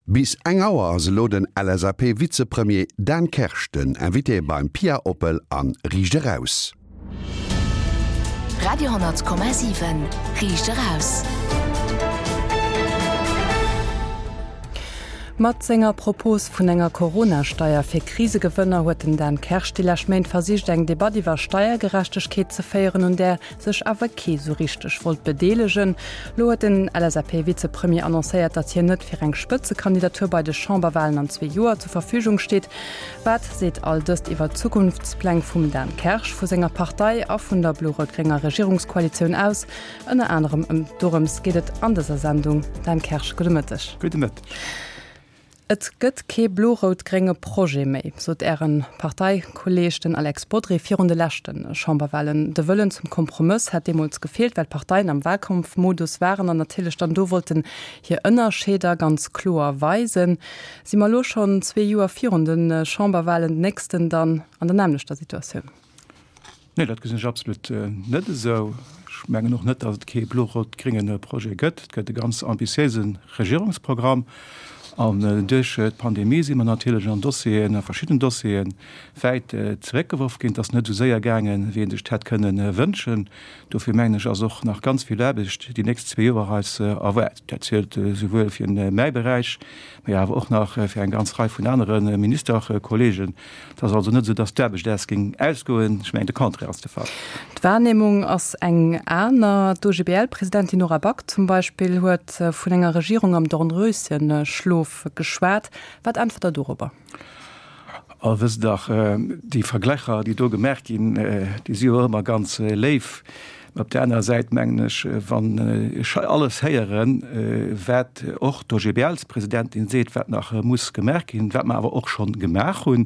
Bis eng Auer ass elo den LSAP-Vizepremier Dan Kersch den Invité beim Pia Oppel an Riicht Eraus. Radio 10,7 Riicht Eraus. Mat senger Propos vun enger Corona-Steier fir Krisegewënner huet den Dan Kersch déi lescht Méint versicht eng Debatt iwwer Steiergerechtegkeet ze féieren, un där sech awer kee sou richteg wollt bedeelegen. Lo huet den LSAP-Vizepremier annoncéiert, datt hien net fir eng Spëtzekandidatur bei de Chamberwalen an zwee Joer zur Verfügung steet. Wat seet all dëst iwwer d'Zukunftspläng vum Dan Kersch, vu senger Partei a vun der blo-rout-grénger Regierungskoalitioun aus? Ënner anerem ëm dorëms geet et an dëser Sendung. Dan Kersch, gudde Mëtteg. Gudde Mëtteg. Et gëtt kee blo-rout-grénge Projet méi, sot Äre Parteikolleeg, den Alex Bodry, virun de leschte Chamberwahlen. De Wëllen zum Kompromëss hätt deemools gefeelt, well d'Parteien am Wahlkampfmodus waren an natierlech dann do wollten hir Ënnerscheeder ganz kloer weisen. Si mer elo schonn zwee Joer virun de Chamberwahlen, den nächsten dann an der nämmlechter Situatioun? Nee, dat gesinn ech absolut net esou. Ech mengen och net, datt et kee blo-rot-grénge Projet gëtt. Et gëtt e ganz ambitiéise Regierungsprogramm. An duerch d'Pandemie si mer natierlech an Dossieren, a verschidden Dossieren, wäit zeréckgeworf ginn. Et ass net esou séier gaangen, wéi ee sech et hätt kënne wënschen. Dofir mengen ech, ass och nach ganz vill Aarbecht déi nächst zwee Joer eis erwaart. Dat zielt esouwuel fir mäi Beräich, mee awer och nach fir eng ganz Rei vun anere Ministerkollegen. Et ass also net esou, datt d'Aarbecht äis géing ausgoen. Ech mengen, de Contraire ass de Fall. D'Wahrnehmung ass eng aner. D'OGBL-Presidentin Nora Back zum Beispill huet vun enger Regierung am Dornröschenschlof geschwat. Wat äntwert Der dorobber? Oh, wësst dach, déi Verglächer, déi do gemaach ginn, déi si jo ëmmer ganz léif. Mä op där anerer Säit mengen ech, wann ech hei alles héieren, wat och d'OGBL-Presidentin seet, wat nach muss gemaach ginn, wat mer awer och scho gemaach hunn,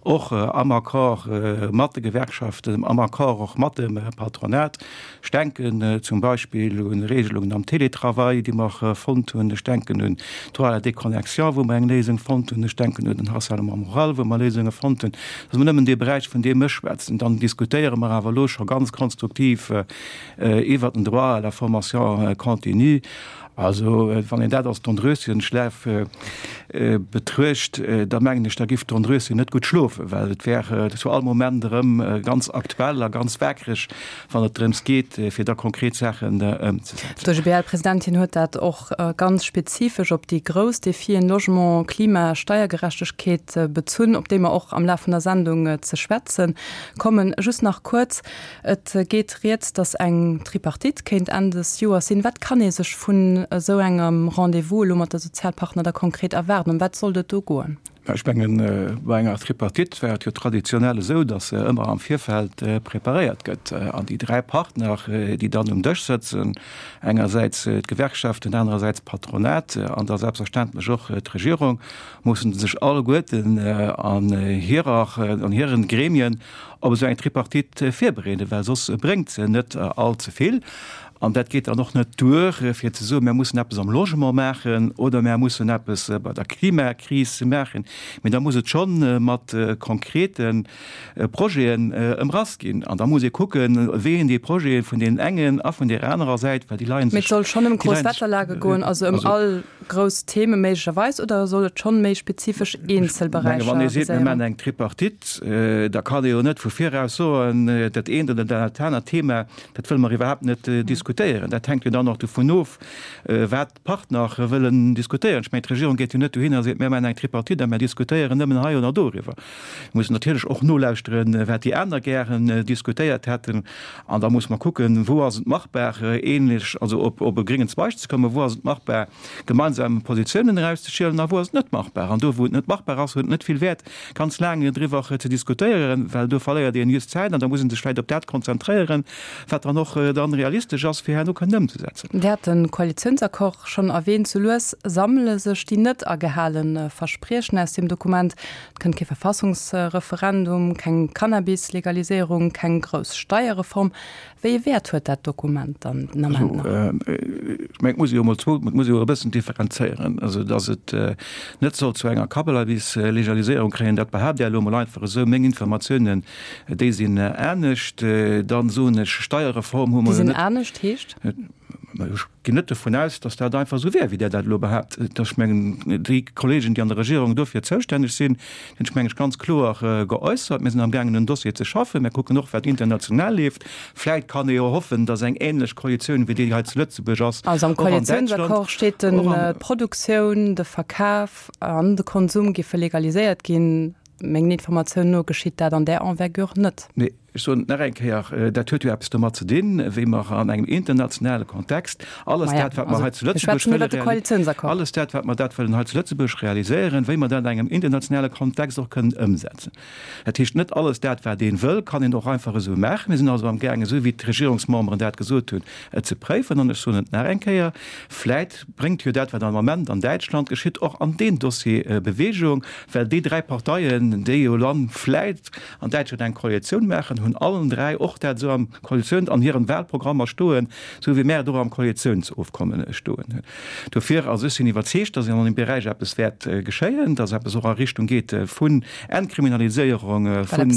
och am Accord mat de Gewerkschaften, am Accord och mat dem Patronat, ech denken zum Beispill u Regelungen am Télétravail, déi mer fonnt hunn, ech denken un d'Droit à la déconnexion, wou mer eng Léisung fonnt hunn, ech denken un den Harcèlement moral, wou mer Léisunge fonnt hunn. Dat ass emol nëmmen dee Beräich, vun deem ech schwätzen. Dann diskutéiere mer awer elo scho ganz konstruktiv iwwert den Droit à la formation continue. Also, wann een dat als Dornröschenschlaf betruecht, da mengen ech, da giff d'Dornröschen net gutt schlofen, well et wär zu all Moment erëm ganz aktuell a ganz waakreg, wann et drëms geet, fir da konkret Saachen ëmzesetzen. D'OGBL-Presidentin huet dat och ganz spezifesch op déi grouss Defien Logement, Klima, Steiergerechtegkeet bezunn, op déi mer och am Laf vun der Sendung ze schwätze kommen. Just nach kuerz, Et geet rieds, datt eng Tripartite kéint Enn des Joers sinn. Wat kann ee sech vun esou engem Rendez-vous elo mat de Sozialpartner da konkret erwaarden? Ëm wat sollt et do goen? Ech mengen, bei enger Tripartite war et jo traditionell esou, datt se ëmmer am Virfeld preparéiert gëtt. An déi dräi Partner, déi dann um Dësch sëtzen, engersäits d'Gewerkschaften, anerersäits d'Patronat an da selbstverständlech och d'Regierung, mussen sech alleguerten an hirer, an hiren Gremien op esou eng Tripartite virbereeden, well soss bréngt se net all ze vill. An dat geet dann och net duer, fir ze soen, mir mussen eppes am Logement maachen oder mir mussen eppes bei der Klimakris maachen, mee da muss et scho mat konkrete Projeten ëmrass ginn. An da muss ee kucken, wéi een déi Projete vun deenen engen a vun där anerer Säit, well déi leie sech. Mee et soll schonn ëm grouss Wetterlage goen, also ëm all grouss Theme méiglecherweis, oder soll et schonn méi spezifesch eenzel Beräicher viséieren? Wann ee seet, mir maachen eng Tripartite, da kann ee jo net vu viraus soen, dat eent oder dat anert Thema, dat wëlle mer iwwerhaapt net diskutéieren. Dat hänkt jo dann och dovun of, wat d'Partner wëllen diskutéieren. Ech mengen, d'Regierung geet jo net dohinner a seet, mir maachen eng Tripartite a mir diskutéieren nëmmen hei oder doriwwer. Mir mussen natierlech och nolauschteren, wat déi aner gären diskutéiert hätten. An da muss mer kucken, wou ass et machbar, ähnlech, also op op e gréngen Zweig ze kommen, wou ass et machbar, gemeinsam Positiounen erauszeschielen a wou ass et net machbar. An do, wou et net machbar ass, huet et net vill Wäert, ganz laang driwwer ze diskutéieren, well do verléiert een just Zäit an da muss ee sech vläicht op dat konzentréieren, wat dann och dann realistesch ass, fir herno kënnen ëmzesetzen. Dir hat de Koalitiounsaccord schonn erwähnt. Sou lues sammele sech déi net agehale Verspriechen aus deem Dokument. Et kënnt kee Verfassungsreferendum, keng Cannabis-Legaliséierung, keng grouss Steierreform. Wéi ee Wäert huet dat Dokument dann den Ament nach? Ech mengen, et muss ee jo emol zwou, et muss ee jo e bëssen differenzéieren. Also, datt et net soll zu enger Cannabis-Legaliséierung kréien, dat behaapt Där elo emol einfach esou. Meng Informatiounen, déi sinn anescht. Dann soen ech, Steierreform hu mer jo net. Déi sinn anescht heescht? Ech ginn net dovun aus, datt dat einfach esou wär, wéi Der dat elo behaapt. Ech mengen, déi Kollegen, déi an der Regierung dofir zoustänneg sinn, hunn sech, meng ech, ganz kloer geäussert. Mir sinn amgaangen, en Dossier ze schaffen. Mir kucken och, wat international leeft. Vläicht kann ee jo hoffen, datt eng ähnlech Koalitioun, wéi déi hei zu Lëtzebuerg ass, Also am och an Däitschland, Koalitiounsaccord steet den, d'Produktioun, de Verkaf an de Konsum géife legaliséiert ginn. Mengen Informatiounen no geschitt dat an där Envergure net. Nee, ech soen et nach eng Kéier, dat huet jo eppes domat ze dinn, wéi mer an engem internationale Kontext alles dat, wat mer hei zu Lëtzebuerg wëlle, alles dat, wat mer dat wëllen hei zu Lëtzebuerg realiséieren, wéi mer dat an engem internationale Kontext och kënnen ëmsetzen. Dat heescht, net alles dat, wat ee wëll, kann een och einfach esou maachen. Mir sinn also amgaangen, esou wéi d'Regierungsmemberen dat gesot hunn, et ze préifen. An ech soen et nach eng Kéier, Vläit bréngt jo dat, wat am Ament an Däitschland geschitt, och an deen Dossier Bewegung, well déi dräi Parteien, déi jo dann vläit an Däitschland eng Koalitioun maachen, hunn allen dräi och dat esou am Koalitioun, an hiren Wahlprogrammer stoen, esou wéi mär et och am Koalitiounsofkommen stoen hunn. Dofir, also ech sinn iwwerzeegt, dass an deem Beräich eppes wäert geschéien, dass eppes och a Richtung geet vun Entkriminaliséierung vun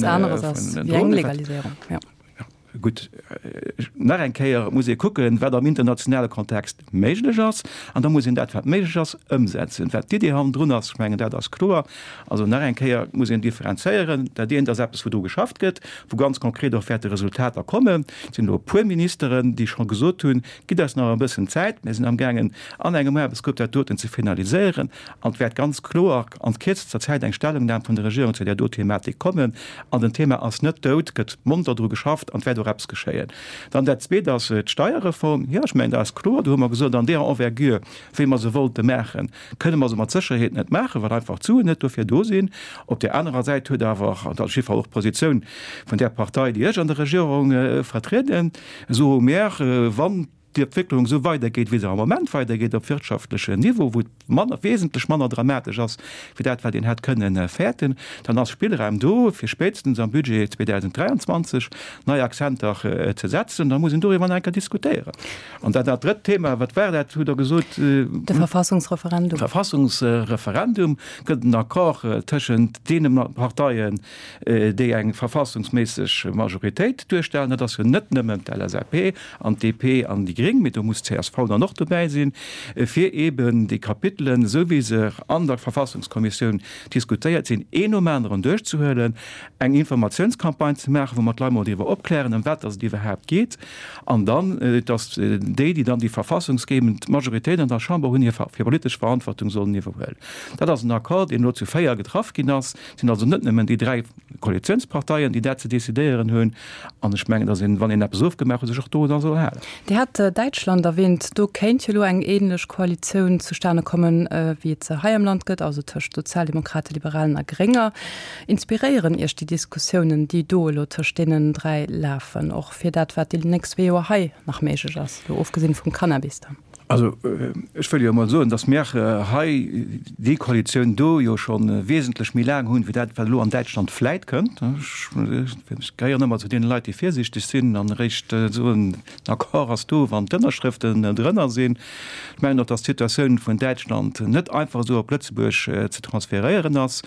Drogen. Gutt, nach eng Kéier, et muss ee kucken, wat am internationale Kontext méiglech ass, an da muss een dat, wat méiglech ass, ëmsetzen. Wat d'Idee hannendrun ass, ech mengen, dat ass kloer. Also nach eng Kéier, et muss een differenzéieren. Dat eent ass eppes, wou dru geschafft gëtt, wou ganz konkret och wäerte Resultater kommen. Et sinn elo e puer Ministeren, déi scho gesot hunn, Gitt eis nach e bëssen Zäit, mir sinn amgaangen, an engem Aarbechtsgrupp dat doten ze finaliséieren. An et wäert ganz kloer an kierzester Zäit eng Stellungnam vun der Regierung zu där do Thematik kommen. An den Thema ass net dout, gëtt monter dru geschafft an et wäert och eppes geschéien. Dann dat Zweet ass d'Steierreform. Jo, ech mengen, dat ass kloer. Do hu mer gesot, an deeër Envergure, wéi mer se wollte maachen, kënne mer se mat Sécherheet net maachen, well einfach d'Suen net dofir do sinn. Op där anerer Säit huet awer, an dat ass jiddwer Fall och d'Positioun vun där Partei, déi ech an der Regierung vertrieden, soe mer, wann d'Entwécklung esou weidergeet, wéi se am Moment weidergeet op wirtschaftlechem Niveau, wou et manner, wesentlech manner dramatesch ass wéi dat, wat een hätt kënnen fäerten, dann ass Spillraum do, fir spéitstens am Budget 2023 nei Akzenter ze setzen. Da muss een doriwwer nach eng Kéier diskutéieren. An dat dat drëtt Thema, wat war dat, hutt Der gesot? De Verfassungsreferendum. Verfassungsreferendum. Gëtt en Accord tëschent deene Parteien, déi eng verfassungsméisseg Majoritéit duerstellen? Dat ass jo net nëmmen d'LSAP an d'DP an déi Gréng, mee do muss d'CSV dann och dobäi sinn, fir eeben déi Kapitelen, esou wéi se an der Verfassungskommissioun diskutéiert sinn, een nom aneren duerchzehuelen, eng Informatiounscampagne ze maachen, wou mer d'Leit mol driwwer opklären, ëm wat dass et iwwerhaapt geet, an dann, dass déi, déi dann déi verfassungsgebend Majoritéit an der Chamber hunn, hir politesch Verantwortung sollen iwwerhuelen. Dat ass en Accord, deen elo zu 4 getraff ginn ass. Et sinn also net nëmmen déi 3 Koalitiounsparteien, déi dat ze decidéieren hunn. An ech mengen, datt een, wann een eppes ofgemaach huet, sech och dorunner soll halen. Dir hat Däitschland erwähnt. Do kéint jo elo eng ähnlech Koalitioun zustane kommen, wéi et se hei am Land gëtt, also tëscht Sozialdemokraten, Liberalen a Grénger. Inspiréieren Iech déi Diskussiounen, déi do elo tëscht deenen 3 lafen, och fir dat, wat déi nächst zwee Joer hei nach méiglech ass, elo ofgesinn vum Cannabis dann? Also ech wëll jo emol soen, datt mir hei déi Koalitioun do jo scho wesentlech méi laang hunn, wéi dat, wat elo an Däitschland vläit kënnt. Ech gehéieren ëmmer zu deene Leit, déi virsiichteg sinn an eréischt soen, den Accord ass do, wann d'Ënnerschrëften drënner sinn. Ech mengen och, datt d'Situatioun vun Däitschland net einfach esou op Lëtzebuerg ze transferéieren ass.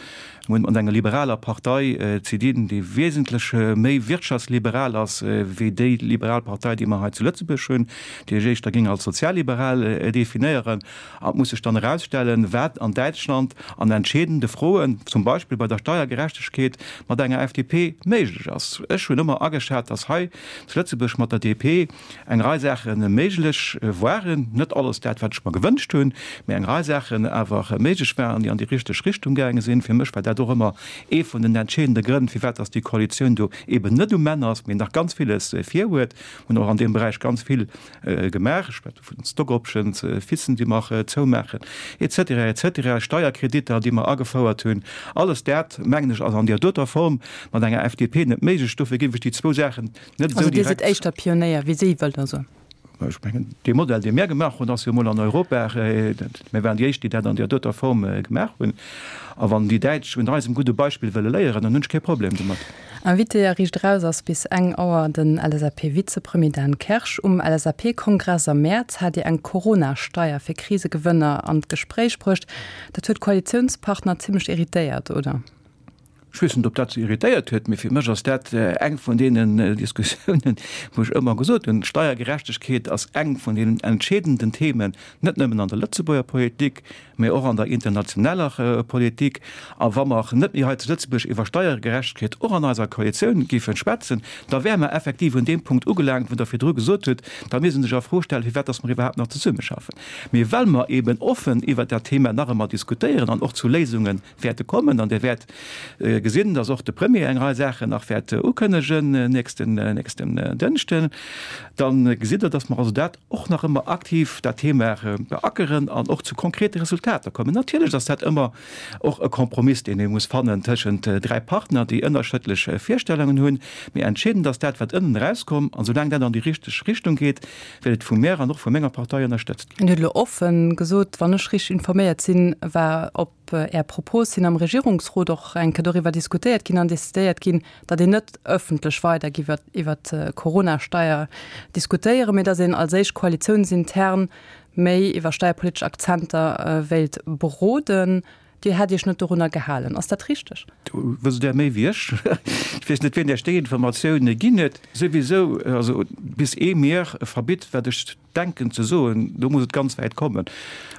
Mir hunn et mat enger liberaler Partei ze dinn, déi wesentlech méi wirtschaftsliberal ass wéi déi liberal Partei, déi mer hei zu Lëtzebuerg hunn, déi ech éischter géing als sozialliberal definéieren. An et muss sech dann erausstellen, wat an Däitschland an entscheedende Froen, zum Beispill bei der Steiergerechtegkeet, mat enger FDP méiglech ass. Ech hunn ëmmer ageschat, dass hei zu Lëtzebuerg mat der DP eng Rei Saache méiglech waren, net alles dat, wat ech mer gewënscht hunn, mä eng Rei Saachen awer méiglech waren, déi an déi richteg Richtung gaange sinn. Fir mech war dat och ëmmer ee vun den entscheedende Grënn, firwat dass déi Koalitioun do eeben net um Enn ass, mee nach ganz villes virhuet. Mir hunn och an deem Beräich ganz vill gemaach, ech schwätze vun den Stock Options, FISen, déi mer zoumaachen, et cetera, et cetera, Steierkreditter, déi mer agefouert hunn. Alles dat, mengen ech, ass an där doter Form mat enger FDP net méiglech. Dofir géif ech déi zwou Saachen Net esou direkt. Also Dir sidd éischter Pionéier wéi si, wëllt Der soen? Ech mengen, dee Modell, dee mir gemaach hunn, ass jo emol an Europa, mir waren déi éischt, déi dat an där doter Form gemaach hunn. A wann déi Däitsch un eisem gudde Beispill wëlle léieren, dann hunn ech kee Problem domat. Invité a Riicht Eraus ass bis eng Auer den LSAP-Vizepremier Dan Kersch. Um LSAP-Kongress am Mäerz hat Dir eng Corona-Steier fir Krisegewënner an d'Gespréich bruecht. Dat huet d'Koalitiounspartner zimmlech irritéiert, oder? Ech weess net, ob dat se irritéiert huet, mee fir mech ass dat eng vun deenen Diskussiounen, wou ech ëmmer gesot hunn, Steiergerechtegkeet ass eng vun deenen entscheedenden Themen, net nëmmen an der Lëtzebuerger Politik, mee och an der internationaler Politik. A wa mer net méi hei zu Lëtzebuerg iwwer Steiergerechtegkeet och an eiser Koalitioun géife schwätzen, da wäre mer effektiv un deem Punkt ugelaangt, wou Der virdru gesot hutt, da misst een sech a Fro stellen, firwat dass mer iwwerhaapt nach zesummeschaffen. Mee well mer eeben offen iwwert dat Thema nach ëmmer diskutéieren an och zu Léisunge wäerte kommen an Dir wäert gesinn, dass och de Premier eng Rei Saachen nach wäert ukënnegen nächsten, nächsten Dënschden, da gesitt Der, dass mer also dat och nach ëmmer aktiv, dat Thema beackeren an och zu konkrete Resultater kommen. Natierlech ass dat ëmmer och e Kompromiss, deen ee muss fannen tëschent 3 Partner, déi ënnerschëdlech Virstellungen hunn. Mee entscheedend ass dat, wat ënnen erauskomm. An soulaang dat an déi richteg Richtung geet, wäert et vu mär an och vu menger Partei ënnerstëtzt ginn. Dir hutt elo offen gesot, wann ech richteg informéiert sinn, war op Är Propos hin am Regierungsrot och eng Kéier doriwwer diskutéiert ginn an decidéiert ginn, datt een net ëffentlech weider giff iwwer d'Corona-Steier diskutéieren, mee datt een als éischt koalitiounsintern méi iwwer steierpolitesch Akzenter wéilt beroden. Dir hätt Iech net dorunner gehalen. Ass dat richteg? Do wësst Der méi wéi ech. Ech weess net, wien Iech déi Informatioune ginn huet. Souwisou, also bis ee mir verbitt, wat ech denken ze soen, do muss et ganz wäit kommen.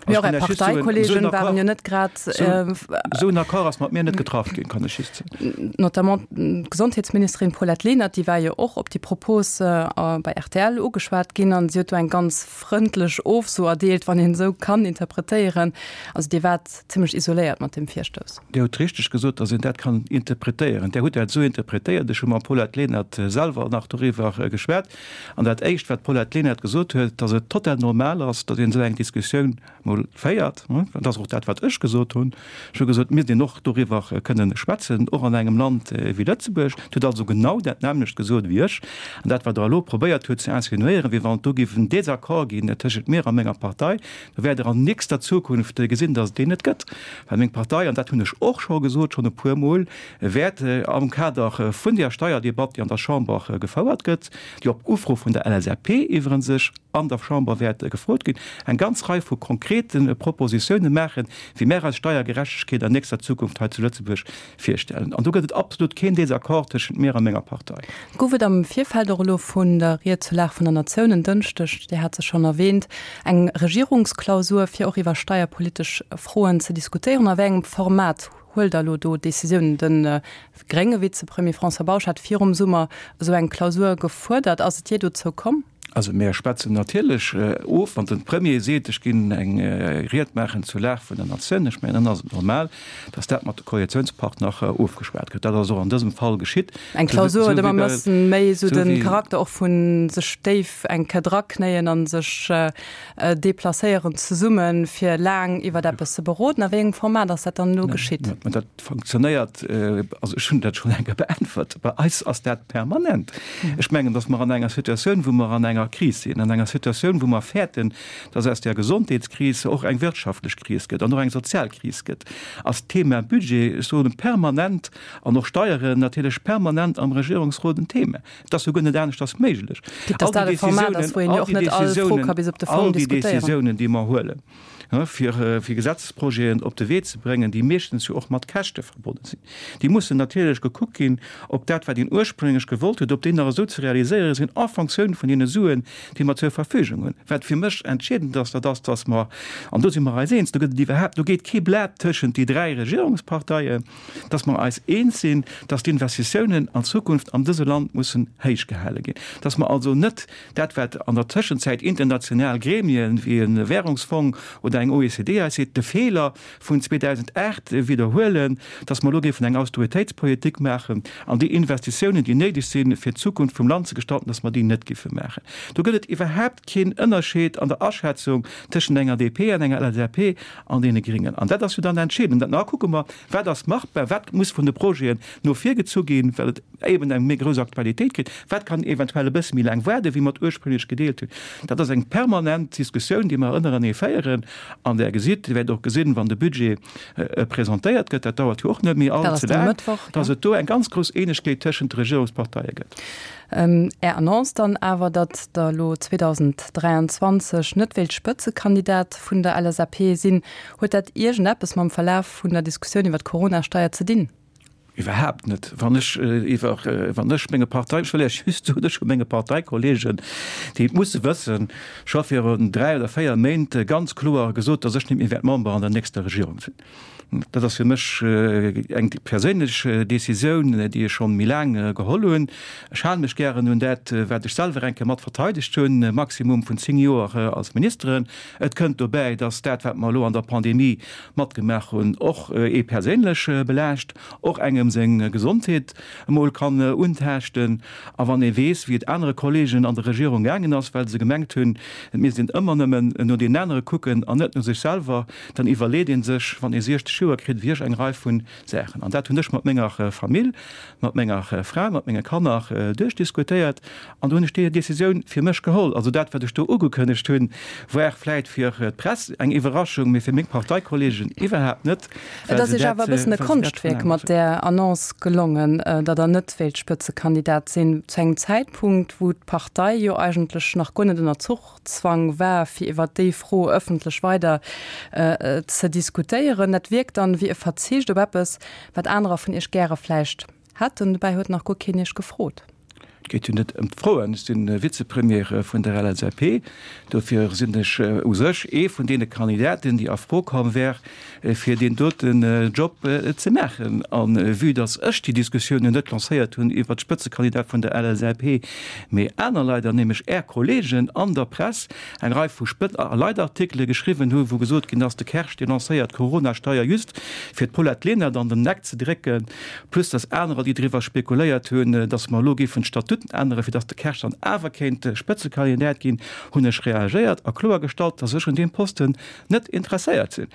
Mee och Är Parteikolleegen waren jo net grad. Esou en Accord ass mat mir net getraff ginn, kann ech just soen. Notamment d'Gesondheetsministerin Paulette Lenert, déi war jo och op déi Propos bei rtl ugeschwat ginn an si huet do eng ganz frëndlech Ofso erdeelt, wann een esou kann interpretéieren. Also Dir waart zimlech isoléiert mat deem Virstouss. Dir hutt richteg gesot, datt een dat kann interpretéieren. Där hutt dat esou interpretéiert. Ech hu mam Paulette Lenert selwer nach doriwwer geschwat. An dat Éischt, wat d'Paulette Lenert gesot huet, datt et total normal ass, datt een esou eng Diskussioun mol féiert. Dat ass och dat, wat ech gesot hunn. Ech hu gesot, et misst een och doriwwer kënnen schwätzen, och an engem Land wéi Lëtzebuerg. Et huet also genau dat nämmlecht gesot wéi ech. An dat, wat Der elo probéiert hutt ze insinuéieren, wéi wann et do géif en Désaccord ginn tëschent mir a menger Partei, do wäert Der an nächster Zukunft gesinn, datt et deen net gëtt. Well meng Partei, an dat hunn ech och scho gesot, schonn e puermol, wäert am Kader vun där Steierdebatt, déi an der Chamber gefouert gëtt, déi op Ufro vun der LSAP iwwerens sech an der Chamber wäert gefrot ginn, eng ganz Rei vu konkrete Propositiounen maachen, wéi mär eis Steiergerechtegkeet an nächster Zukunft hei zu Lëtzebuerg virstellen. An do gëtt et absolut keen Désaccord tëschent mir a menger Partei. Gouf et am Virfeld och elo vun der Ried zur Lag vun der Natioun en Dënschdeg, Dir hat se schonn erwähnt, eng Regierungsklausur, fir och iwwer steierpolitesch Froen ze diskutéieren? A wéi engem Format Huelt Der elo do Decisiounen? De grénge Vizepremier François Bausch hat virum Summer esou eng Klausur gefuerdert. Ass et jee dozou komm? Also mir schwätzen natierlech of, wann de Premier seet, ech ginn eng Ried maachen zur Lag vun der Natioun, ech mengen, dann ass et normal, datt dat mat de Koalitiounspartner ofgeschwat gëtt. Dat ass och an dësem Fall geschitt. Eng Klausur huet ëmmer e bëssen méi esou de Charakter och vu sech déif eng Kéier draknéien a sech Deplacéieren zesummen, fir laang iwwert eppes ze beroden. A wéi engem Format ass dat dann elo geschitt? Mä dat funktionéiert, also ech hunn dat schonn eng Kéier beäntwert, bei eis ass dat permanent. Ech mengen, datt mer an enger Situatioun, wou mer an enger Kris sinn, an enger Situatioun, wou mer fäerten, datt aus där Gesondheetskris och eng wirtschaftlech Kris gëtt an och eng sozial Kris gëtt, ass d'Thema Budget, ech soen permanent, an och Steieren natierlech permanent am Regierungsrot en Thema. Et ass jo guer net aneschters méiglech. All déi Decisiounen, all déi Decisiounen, déi mer huelen, fir Gesetzesprojeten op de Wee ze bréngen, déi meeschtens jo och mat Käschte verbonnen sinn, déi mussen natierlech gekuckt ginn, ob dat, wat een ursprénglech gewollt huet, ob déi nach esou ze realiséiere sinn en Fonctioun vun deene Suen, déi mer zur Verfügung hunn. Wat fir mech entscheedend ass, dat ass, dass mer, an do si mer eis eens, do gëtt et iwwerhaapt, do geet kee Blat tëschent déi 3 Regierungsparteien, dass mer eis eens sinn, dass d'Investitiounen an Zukunft an dëse Land mussen héich gehale ginn, dass mer also net dat, wat an der Tëschenzäit international Gremien wéi e Währungsfong oder eng OECD eis seet, de Feeler vun 2008 widderhuelen, dass mer elo géifen eng Austeritéitspolitik maachen an déi Investitiounen, déi néideg sinn, fir d'Zukunft vum Land ze gestalten, dass mer déi net géife maachen. Do gëtt et iwwerhaapt keen Ënnerscheed an der Aschätzung tëschent enger DP an enger LSAP an deene Gringen. An dat ass jo dann entscheedend. An da kucke mer, Wat ass machbar, wat muss vun de Projeten no vir gezu ginn, well et eben eng méi grouss Aktualitéit kritt, wat kann eventuell e bësse méi laang waarden, wéi mer et ursprünglech gedeelt hunn. Dat ass eng permanent Diskussioun, déi mer ënnerenee féieren. An Der gesitt, Dir wäert och gesinn, wann de Budget presentéiert gëtt, dat dauert jo och net méi all ze laang, dass et do eng ganz grouss Eenegkeet tëschent de Regierungsparteie gëtt. Är Annonce dann awer, datt Der elo 2023 net wéilt Spëtzekandidat vun der LSAP sinn, huet dat iergendeppes mam Verlaf vun der Diskussioun iwwer d'Corona-Steier ze dinn? Iwwerhaapt net. Wann ech iwwer, wann ech menge Partei, ech wëll Iech just soen, ech hu menge Parteikollegen, déi et musse wëssen, scho virun 3 oder 4 Méint ganz kloer gesot, datt ech net méi wäert Member an der nächster Regierung sinn. Dat ass fir mech eng perséinlech Decisioun, déi ech schonn méi laang geholl hunn. Ech hale mech gären un dat, wat ech selwer eng Kéier mat verteidegt hunn, e Maximum vun 10 Joer als Ministeren. Et kënnt dobäi, datt dat, wat mer elo an der Pandemie matgemaach hunn, och ee perséinlech belaascht, och engem seng Gesondheet emol kann untaaschten. A wann ee weess, wéi et anere Kollegen an der Regierung gaangen ass, well se gemengt hunn, et misst een ëmmer nëmmen no deenen anere kucken an net no sech selwer, dann iwwerleet ee sech, wann ee 60 Joer kritt, wéi ech eng Rei vu Saachen. An dat hunn ech mat menger Famill, mat menger Fra, mat menge Kanner duerchdiskutéiert an do hunn ech déi Décisioun fir mech geholl. Also dat, wat ech do ugekënnegt hunn, war vläit fir d'Press eng Iwwerraschung, mee fir meng Parteikollegen iwwerhaapt net. Et ass Iech awer e bëssen e Konschtwierk mat där Annonce gelongen, datt Der net wéilt Spëtzekandidat sinn, zu engem Zäitpunkt, wou d'Partei jo eigentlech nach guer net ënner Zuch Zwang war, fir iwwer déi Fro ëffentlech weider ze diskutéieren. Dat wierkt dann wéi e Verzicht op eppes, wat anerer vun Iech gäre vläicht hätten. Dobäi huet nach guer keen Iech gefrot. Et geet jo net ëm d'Froen. Ech si Vizepremier vun der LSAP. Dofir sinn ech u sech ee vun deene Kandidaten, déi a Fro komm wär, fir deen doten Job ze maachen. A vue datt ech déi Diskussioun jo net lancéiert hunn iwwert d'Spëtzekandidat vun der LSAP, mee aner Leit, an nämlech Är Kollegen an der Press, eng Rei vu Spët a Leitartikele geschriwwen hu wou gesot ginn ass, de Kersch dee lancéiert d'Coronasteier just fir d'Paulette Lenert an den Eck ze drécken, plus datt anerer déi driwwer spekuléiert hunn, datt mer elo géifen d'Statuten änneren, fir datt de Kersch dann awer kéint Spëtzekandidat ginn, hunn ech reagéiert a kloergestallt, datt ech un deem Posten net interesséiert sinn.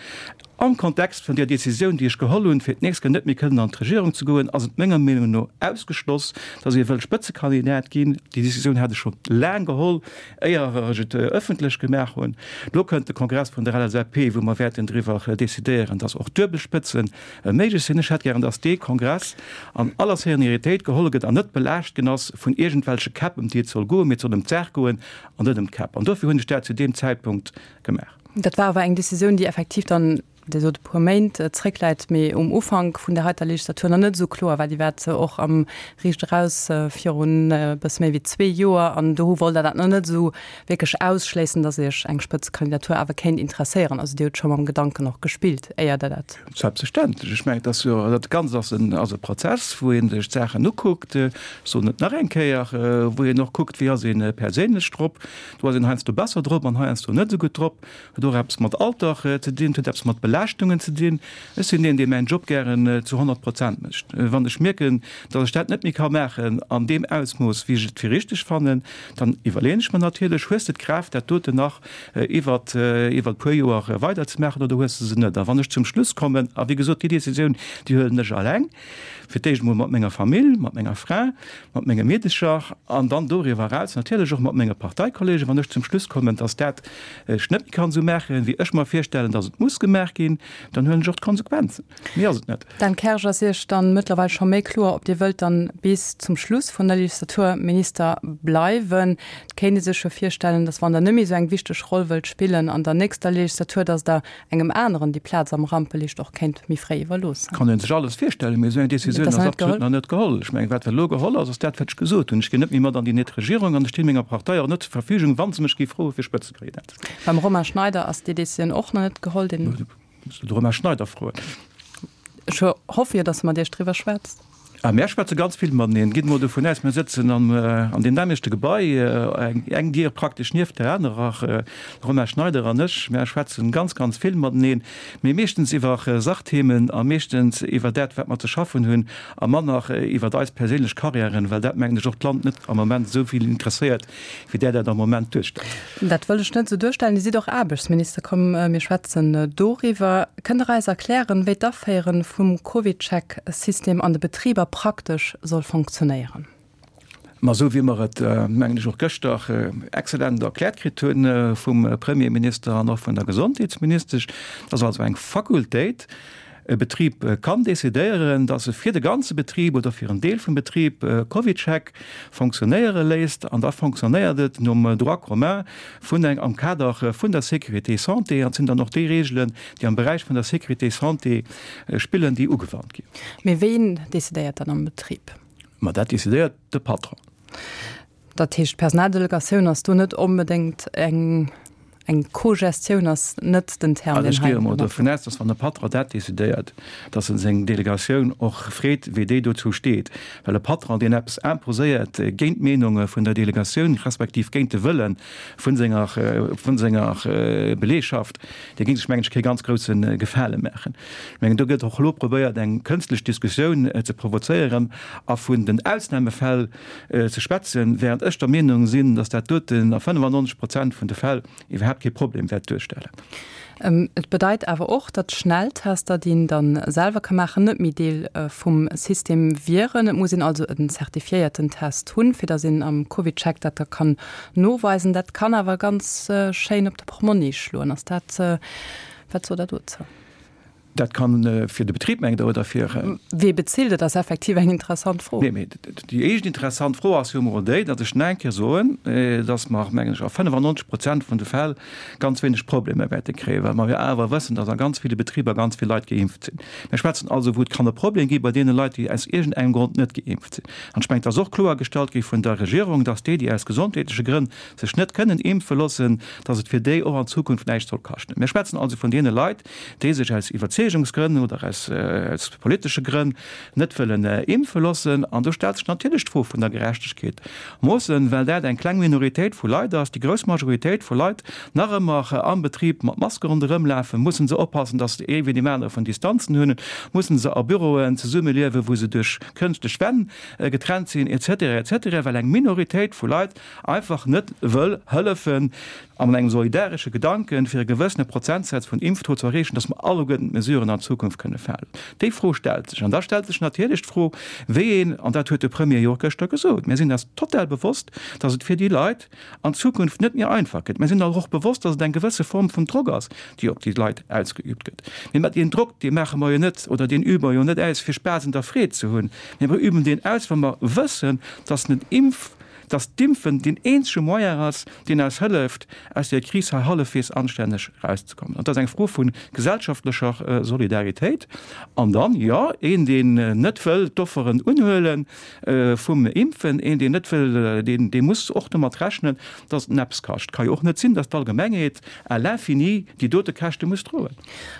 Am Kontext vun där Décisioun, déi ech geholl hunn, fir d'nächst Kéier net méi kënnen an d'Regierung ze goen, ass et menger Meenung no ausgeschloss, datt ee wëll Spëtzekandidat ginn. Déi Décisioun hat ech scho laang geholl, éier ech et ëffentlech gemaach hunn. Elo kënnt de Kongress vun der LSAP, wou mer wäerten driwwer decidéieren, datt och duebel Spëtze méiglech sinn. Ech hätt gären, datt dee Kongress an aller Serenitéit geholl gëtt an net belaascht ginn ass vun iergendwelche Käpp, ëm déi et soll goen, mee et soll ëm d'Saach goen an net ëm d'Käpp. An dofir hunn ech dat zu deem Zäitpunkt gemaach. Dat war awer eng Decisioun, déi effektiv dann, Dir sot e puer Méint zréckläit, mee um Ufank vun där heiter Legislatur nach net esou kloer war. Déi war och am Riicht eraus virun e bësse méi wéi zwee Joer an do wollt Der dat nach net esou wierklech ausschléissen, datt Iech eng Spëtzekandidatur awer kéint interesséieren. Also Dir hutt scho mam Gedanken och gespillt, éier Der dat. Selbstverständlech. Ech mengen, et ass jo, dat Ganzt ass en, ass e Prozess, wou ee sech d'Saachen ukuckt, ech soen et nach eng Kéier, wou een och kuckt, wéi ass ee perséinlech drop. Do ass een heiansdo besser drop an heiansdo net esou gutt drop. Huet och eppes mat Alter ze dinn, huet eppes mat Belaaschtungen ze dinn. Ech sinn een, dee mäin Job gären zu 100 Prozent mécht. Wann ech mierken, datt ech dat net méi ka maachen an deem Ausmooss, wéi ech et fir richteg fannen, dann iwwerleeën ech mer natierlech, Hues de d'Kraaft, dat doten nach iwwert iwwert e puer Joer weiderzemaachen oder hues de se net? A wann ech zum Schluss kommen, a wéi gesot, déi Decisioun, déi huelen ech alleng, fir d'éischt emol mat menger Famill, mat menger Fra, mat menge Meedecher an dann doriwwer eraus natierlech och mat menge Parteikollegen, wann ech zum Schluss kommen, dass dat ech net méi kann esou maachen, wéi ech mer virstellen, dass et muss gemaach ginn, dann huelen ech och d'Konsequenzen. Méi ass et net. Dan Kersch, Ass Iech dann mëttlerweil scho méi kloer, ob Dir wëllt dann bis zum Schluss vun der Legislatur Minister bleiwen? Et kéint ee sech jo virstellen, dass wann Der net méi esou eng wichteg Roll wëllt spillen an der nächster Legislatur, dass Der engem aneren déi Plaz am Rampelicht och kéint méi fréi iwwerloossen. Kann ee sech alles virstellen, mee esou eng Décisioun ass absolut nach net geholl. Ech mengen, wat elo geholl ass, ass dat, wat ech gesot hunn. Ech ginn net méi mat an déi net Regierung an ech stinn menger Partei och net zur Verfügung, wa se mech géif froe fir Spëtzekandidat ze ginn. Beim Romain Schneider ass déi Décisioun och nach net geholl. Deen. Muss de Romain Schneider froen. Ech hoffe jo, datt e mat Iech driwwer schwätzt. A mär schwätze ganz vill mateneen. Gitt emol dovun aus, mir sëtzen an deem nämmlechte Gebai, eng Dier praktesch nieft der anerer, de Romain Schneider an ech. Mär schwätzen ganz, ganz vill mateneen, mee meeschtens iwwer Sachthemen a meeschtens iwwer dat, wat mer ze schaffen hunn a manner iwwer eis perséinlech Karriären, well dat, mengen ech, och d'Land net am Moment esou vill interesséiert, wéi Der dat am Moment duerstellt. Dat wëll ech net esou duerstellen. Dir sidd och Aarbechtsminister. Komm, mir schwätzen doriwwer. Kënnt Der eis erklären, wéi d'Aféiere vum CovidCheck-System an de Betriber praktesch soll fonctionnéieren? Ma esou wéi mer et, mengen ech, och gëschter exzellent erkläert kritt hu vum Premierminister an och vun der Gesondheetsministesch, dat ass also eng Fakultéit. E Betrib kann decidéieren, dass e fir de ganze Betrib oder fir en Deel vum Betrib CovidCheck fonctionnéiere léisst an da fonctionnéiert et nom Droit commun vun eng am Kader vun der Sécurité santé an et sinn dann och déi Reegelen, déi am Beräich vun der Sécurité santé spillen, déi ugewannt ginn. Mee ween decidéiert dann am Betrib? Ma dat decidéiert de Patron. Dat heescht, d'Personaldelegatioun ass do net onbedéngt eng, eng Co-Gestioun ass net den Term, deen hei. Also ech gehe emol dovun aus, dass wann de Patron dat decidéiert, dass en seng Delegatioun och freet, wéi déi dozou steet. Well e Patron, deen eppes imposéiert géint d'Meenunge vun der Delegatioun, respektiv géint de Wëlle vun senger, vun senger Beleegschaft, dee géing sech, mengen ech, kee ganz grousse Gefale maachen. Ech mengen, do gëtt och elo probéiert, eng kënstlech Diskussioun ze provozéieren a vun den Ausnahmefäll, ze schwätzen, während ech der Meenung sinn, dass dat doten a 95 Prozent vun de Fäll iwwerhaapt kee Problem wäert duerstellen. Et bedeit awer och, datt Schnelltester, déi een dann selwer ka maachen, net méi Deel vum System wieren. Et muss een also en zertifiéierten Test hunn, fir datt een am CovidCheck dat da kann noweisen. Dat kann awer ganz schéin op de Portmonni schloen. Ass dat, wat sot Der dozou? Dat kann fir de Betrib, mengt Der, oder fir. Wee bezilt? Et ass effektiv eng interessant Fro. Nee, mee déi éischt interessant Fro ass jo emol déi, datt ech nach eng Kéier soen, datt mer, mengen ech, a 95 Prozent vun de Fäll ganz wéineg Problemer wäerte kréien, well mer jo awer wëssen, datt a ganz ville Betriber ganz vill Leit geimpft sinn. Mir schwätzen also, wou et kann e Problem gi bei deene Leit, déi aus iergendengem Grond net geimpft sinn. An ech mengen, et ass och kloergestallt gi vun der Regierung, datt déi, déi aus gesondheetleche Grënn sech net kënnen impfe loossen, datt et fir déi och an Zukunft näischt soll kaschten. Mir schwätzen also vun deene Leit, déi sech aus Iwwerzeegungsgrënn oder aus politesche Grënn net wëllen impfe loossen. An do stellt sech natierlech d'Fro vun der Gerechtegkeet. Moossen, well dat eng kleng Minoritéit vu Leit ass, déi grouss Majoritéit vu Leit nach ëmmer am Betrib mat Maske ronderëm lafen, mussen se oppassen, datt se ee wéi deem anere vun Distanzen hunn, mussen se a Büroen zesummeliewen, wou se duerch kënschtlech Wänn getrennt sinn, et cetera, et cetera, well eng Minoritéit vu Leit einfach net wëll hëllefen, an engem solidaresche Gedanken, fir e gewëssene Prozentsaz vun Impftaux ze erreechen, dass mer alleguerten d'Mesuren an Zukunft kënne falen? Déi Fro stellt sech. An da stellt sech natierlech d'Fro, wéi een, an dat huet de Premier jo och gëschter gesot, mir sinn eis total bewosst, dass et fir déi Leit an Zukunft net méi einfach gëtt. Mir sinn eis och bewosst, dass et eng gewësse Form vun Drock ass, déi op déi Leit ausgeübt gëtt. Mee mat deen Drock, dee maache mer jo net oder deen übe mer jo net aus, fir Spaass un der Freed ze hunn, mee mer üben deen aus, wa mer wëssen, dass den Impf, dass d'Impfen deen eenzege Moyen ass, deen eis hëlleft, aus där Kris hei hallefweegs anstänneg erauszekommen. An dat ass eng Fro vu gesellschaftlecher Solidaritéit. An dann, jo, een, deen net wëll d'Offeren unhuele vum Impfen, een, deen net wëll, deen, dee muss och domat rechnen, dass et en eppes kascht. Et ka jo och net sinn, dass d'Allgemengheet à l'infini déi dote Käschte muss droen.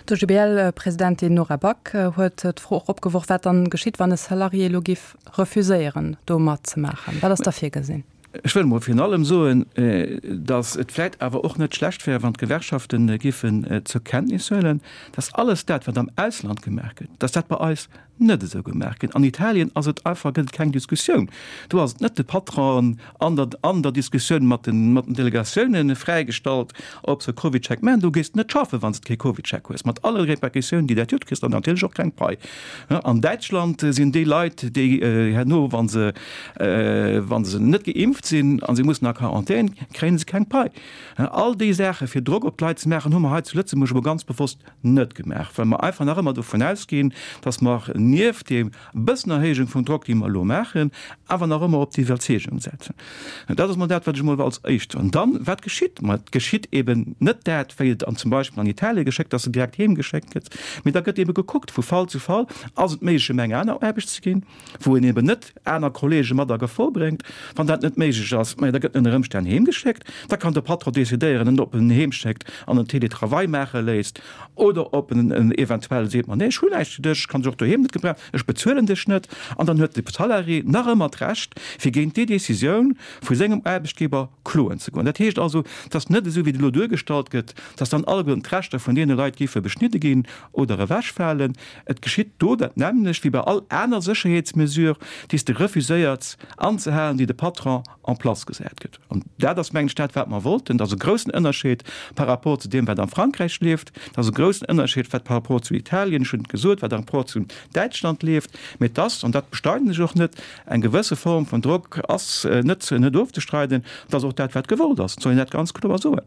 D'OGBL-Presidentin Nora Back huet d'Fro och opgeworf, wat dann geschitt, wann e Salarié elo giff refuséieren do matzemaachen? Wat ass da virgesinn? Ech wëll emol virun allem soen, datt et vläicht awer och net schlecht wär, wann d'Gewerkschafte géifen zur Kenntnis huelen, datt alles dat, wat am Ausland gemaach gëtt, datt dat bei eis net esou gemaach gëtt. An Italien ass et einfach, gëtt et keng Diskussioun. Do ass et net de Patron an der, an der Diskussioun mat den, mat den Delegatiounen fräigestallt, ob se e CovidCheck maachen. Do gees de net schaffen, wann s de kee CovidCheck hues, mat alle Répercussiounen, déi dat huet. Du kriss dann natierlech och keng Pai. An Däitschland sinn déi Leit, déi herno, wa se, wa se net geimpft sinn a se mussen a Quarantän, kréie se keng Pai. All déi Saache fir Drock op d'Leit ze maachen, hu mer hei zu Lëtzebuerg elo ganz bewosst net gemaach, well mer einfach nach ëmmer dovun ausginn, datt mer nieft deem bëssen Erhéijung vum Drock, déi mer elo maachen, awer nach ëmmer op d'Iwwerzeegung setzen. Dat ass emol dat, wat ech emol als éischt soen. Dann, wat geschitt? Ma et geschitt eben net dat, wéi et an zum Beispill an Italien geschéckt, dass se direkt heem geschéckt gëtt, mee da gëtt ebe gekuckt vu Fall zu Fall, ass et méiglech, em eng aner Aarbecht ze ginn, wou een eben net aner Kollege mat a Gefor bréngt. Wann dat net méiglech ass, majo, da gëtt en ënner Ëmstänn heemgeschéckt. Da kann de Patron decidéieren, en ob en en heemschéckt an en Télétravail maache léisst oder ob en en eventuell seet, ma nee, ech hunn näischt fir dech, ech kann dech och doheem net gebrauchen, ech bezuelen dech net. An dann huet de Salarié nach ëmmer d'Recht, fir géint déi Décisioun vu sengem Aarbechtgeber kloen ze goen. Dat heescht also, et ass net esou, wéi et elo duergestallt gëtt, dass dann alleguerten d'Rechter vun deene Leit géife beschnidde ginn oder ewechfalen. Et geschitt do dat nämmlecht wéi bei all aner Sécherheetsmesure, déi s de refuséiers anzehalen, déi de Patron en place gesat gëtt. An dat ass, mengen ech, dat, wat mer wollten. Dat ass e groussen Ënnerscheed par rapport zu deem, wat am Frankräich leeft. Dat ass e groussen Ënnerscheed, wat par rapport zu Italien, ech hunn et gesot, wat par rapport zu Däitschland leeft. Mee et ass, an dat bestreiden ech och net, eng gewësse Form vun Drock ass net, net ofzestreiden. Dat ass och dat, wat gewollt ass. Et soll een dat ganz kloer soen.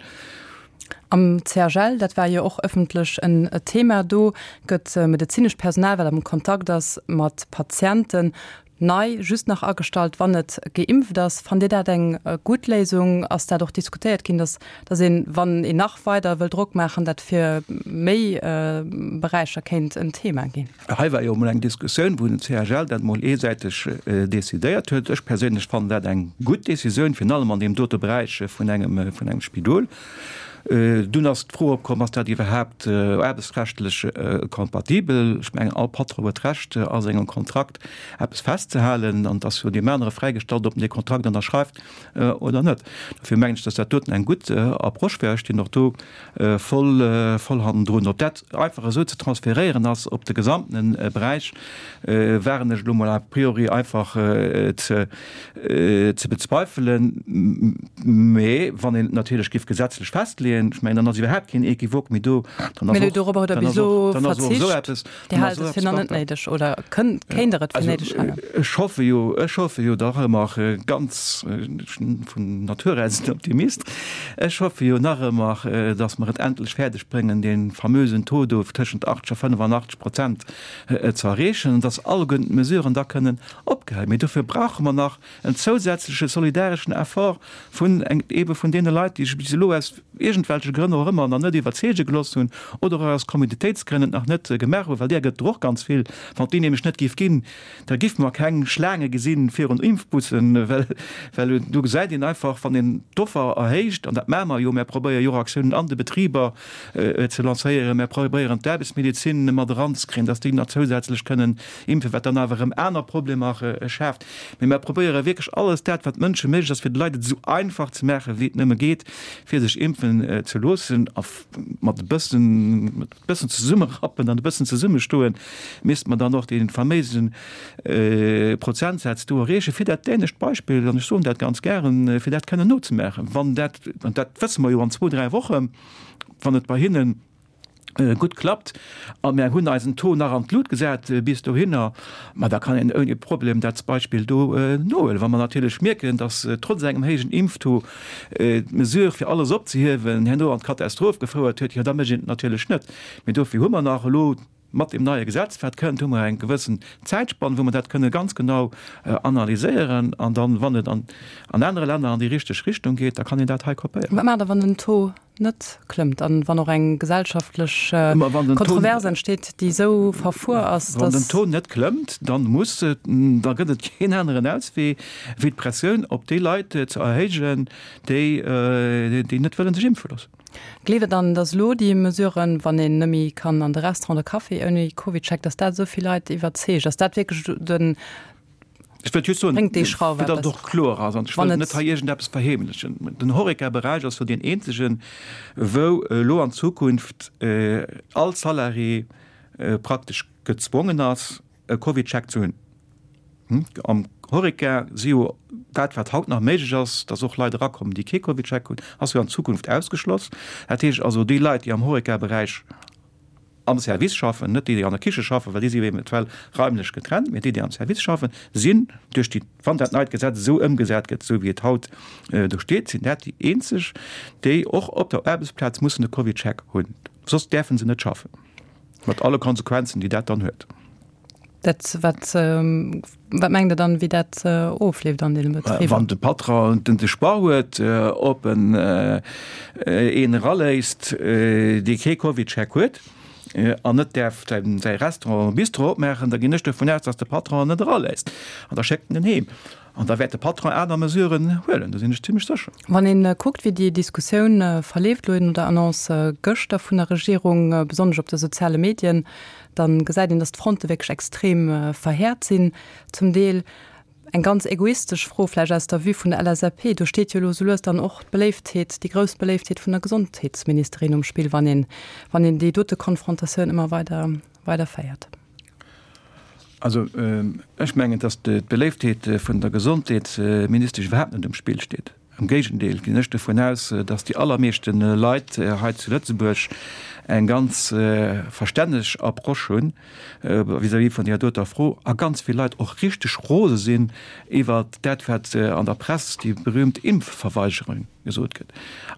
Am CHL, dat war jo och ëffentlech en Thema, do gëtt medezinescht Personal, wat am Kontakt ass mat Patienten, nei just nach agestallt, wann et geimpft ass. Fannt Dir dat eng gutt Léisung? Ass dat och diskutéiert ginn, datt datt een, wann een nach weider wëll Drock maachen, dat fir méi Beräicher kéint en Thema ginn? Hei war jo emol eng Diskussioun, wou den CHL dat emol eesäiteg decidéiert huet. Ech perséinlech fannen dat eng gutt Decisioun, virun allem an deem dote Beräich vun engem, vun engem Spidol. Dunn ass d'Fro opkomm, Ass dat iwwerhaapt aarbechtsrechtlech kompatibel? Ech mengen, all Patron huet d'Recht, a sengem Kontrakt eppes festzehalen, an et ass jo deem anere fräigestallt, ob en dee Kontrakt ënnerschreift oder net. Dofir mengen ech, dass dat doten eng gutt Approche wär. Ech stinn och do voll, voll hannendrun. Ob dat einfach esou ze transferéieren ass op de gesamten Beräich, waren ech elo mol a priori einfach ze, ze bezweifelen. Mä wann een et natierlech géif gesetzlech festleeën, ech mengen, dann ass iwwerhaapt keen Equivoque méi do, dann ass och, dann ass och, dann ass och esou eppes, Dir haalt et fir nach net néideg oder kënnt, kéint Der et fir néideg halen? Ech hoffe jo, ech hoffe jo dach ëmmer ganz, ech sinn vun Natur aus en Optimist, ech hoffe jo nach ëmmer, datt mer et endlech fäerdeg bréngen, dee famösen Taux do tëschent 80 a 85 Prozent ze erreechen an datt alleguerten d'Mesuren da kënnen opgehäit. Mee dofir brauche mer nach en zousätzleche solidareschen Effort vun eebe vun deene Leit, déi sech bis elo aus iergendwelche Grënn och ëmmer nach net iwwerzeege gelooss hunn oder och aus Komoditéitsgrënn et nach net gemaach hunn, well där gëtt et och ganz vill. Wann et déi nämlech net géif ginn, da géife mer keng Schlaange gesi virun Impfbussen, well well do gesäit een einfach, wann een d'Offer erhéicht, an dat maache mer jo, mär probéiere jo och Aktiounen an de Betriber ze lancéieren, mär probéieren d'Aarbechtsmedezin mat eranzekréien, dass déi nach zousätzlech kënnen impfen, wat dann awer erëm aner Problemer schaaft. Mee mer probéiere wierklech alles dat, wat Mënsche méiglech ass, fir de Leit et esou einfach ze maachen, wéi et nëmme geet, fir sech impfen ze loossen. A mat e bëssen, mat e bëssen zesummerappen an e bëssen zesummestoen, misste mer dann och dee faméise Prozentsaz do erreechen, fir dat dänescht Beispill, an ech soen dat ganz gären, fir dat kënnen nozemaachen. Wann dat, an dat wësse mer jo an zwou, dräi Wochen, wann et bei hinnen gutt klappt a mär hunn eisen Taux nach an d'Lut gesat bis dohinner, ma da kann een ouni Problem dat Beispill do nohuelen. Wa mer natierlech mierken, datt trotz engem héijen Impftaux d'Mesure fir alles opzehiewen herno an d'Katastroph gefouert huet, jo da mécht een et natierlech net. Mee dofir hu mer nach elo mat deem neie Gesetz wat kënnt, hu mer eng gewëssen Zäitspann, wou mer dat kënne ganz genau analyséieren an dann, wann et an anere Länner an déi richteg Richtung geet, da kann een dat hei kopéieren. Wat maacht Der, wann den Taux net klëmmt an wann och eng gesellschaftlech Kontrovers entsteet, déi esou verfuer ass, dass. Wann den Taux net klëmmt, dann muss, da gëtt et keen aneren Auswee, wéi d'Pressioun op déi Leit ze erhéijen, déi, déi net wëllen sech impfe loossen. Gleeft Der dann, dass elo déi Mesuren, wann een net méi kann an de Restaurant oder Café ouni CovidCheck, dass dat esou vill Leit iwwerzeegt? Ass dat wierklech den. Ech wëllt just soen, fir datt et och kloer ass, an ech wëll net hei iergendeppes verheemlechen, Den Horeca-Beräich ass jo deen eenzegen, wou elo an Zukunft all Salarié praktesch gezwongen ass, e CovidCheck ze hunn. Am Horeca si jo dat, wat haut nach méiglech ass, datt och Leit erakommen, déi kee CovidCheck hunn, ass jo an Zukunft ausgeschloss. Dat heescht also, déi Leit, déi am Horeca-Beräich am Service schaffen, net déi, déi an der Kiche schaffen, well déi si eventuell raimlech getrennt, mee déi, déi am Service schaffen, sinn duerch déi, wann dat neit Gesetz esou ëmgesat gëtt, esou wéi et haut do steet, sinn dat déi eenzeg, déi och op der Aarbechtsplaz mussen e CovidCheck hunn, soss däerfe se net schaffen, mat alle Konsequenzen, déi dat dann huet. Dat, wat, wat mengt Der dann, wéi dat ofleeft an deene Betriber? Wann de Patron den de Choix huet, ob en een eraléisst, dee kee CovidCheck huet an net däerf säi Restaurant oder Bistro opmaachen, da ginn ech dovun aus, datt de Patron en net eraléisst an da schéckt en en heem. An da wäert de Patron aner Mesuren huelen, do sinn ech zimmlech sécher. Wann ee kuckt, wéi déi Diskussioun verleeft elo no der Annonce gëschter vun der Regierung, besonnesch op de soziale Medien, da gesäit een, datt d'Fronte wierklech extrem verhäert sinn zum Deel. Eng ganz egoistesch Fro vläicht aus der Vue vun der LSAP, do steet jo elo sou lues dann och d'Beléiftheet, déi grouss Beléiftheet vun der Gesondheetsministerin um Spill, wann een, wann een déi dote Konfrontatioun ëmmer weider, weider féiert. Also ech mengen, datt d'Beléiftheet vun der Gesondheetsministesch iwwerhaapt net um Spill steet. Am Géigendeel ginn ech dovun aus, datt déi allermeeschte Leit hei zu Lëtzebuerg. eng ganz verstänneg Approche hunn vis-à-vis vun där doter Fro a ganz vill Leit och richteg rose sinn iwwert dat, wat an der Press déi berühmt Impfverweigerung gesot gëtt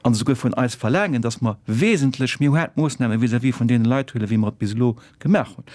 an esouguer vun eis verlaangen, dass mer wesentlech méi haart Moossname vis-à-vis vun deene Leit huelen, wéi mer et bis elo gemaach hunn.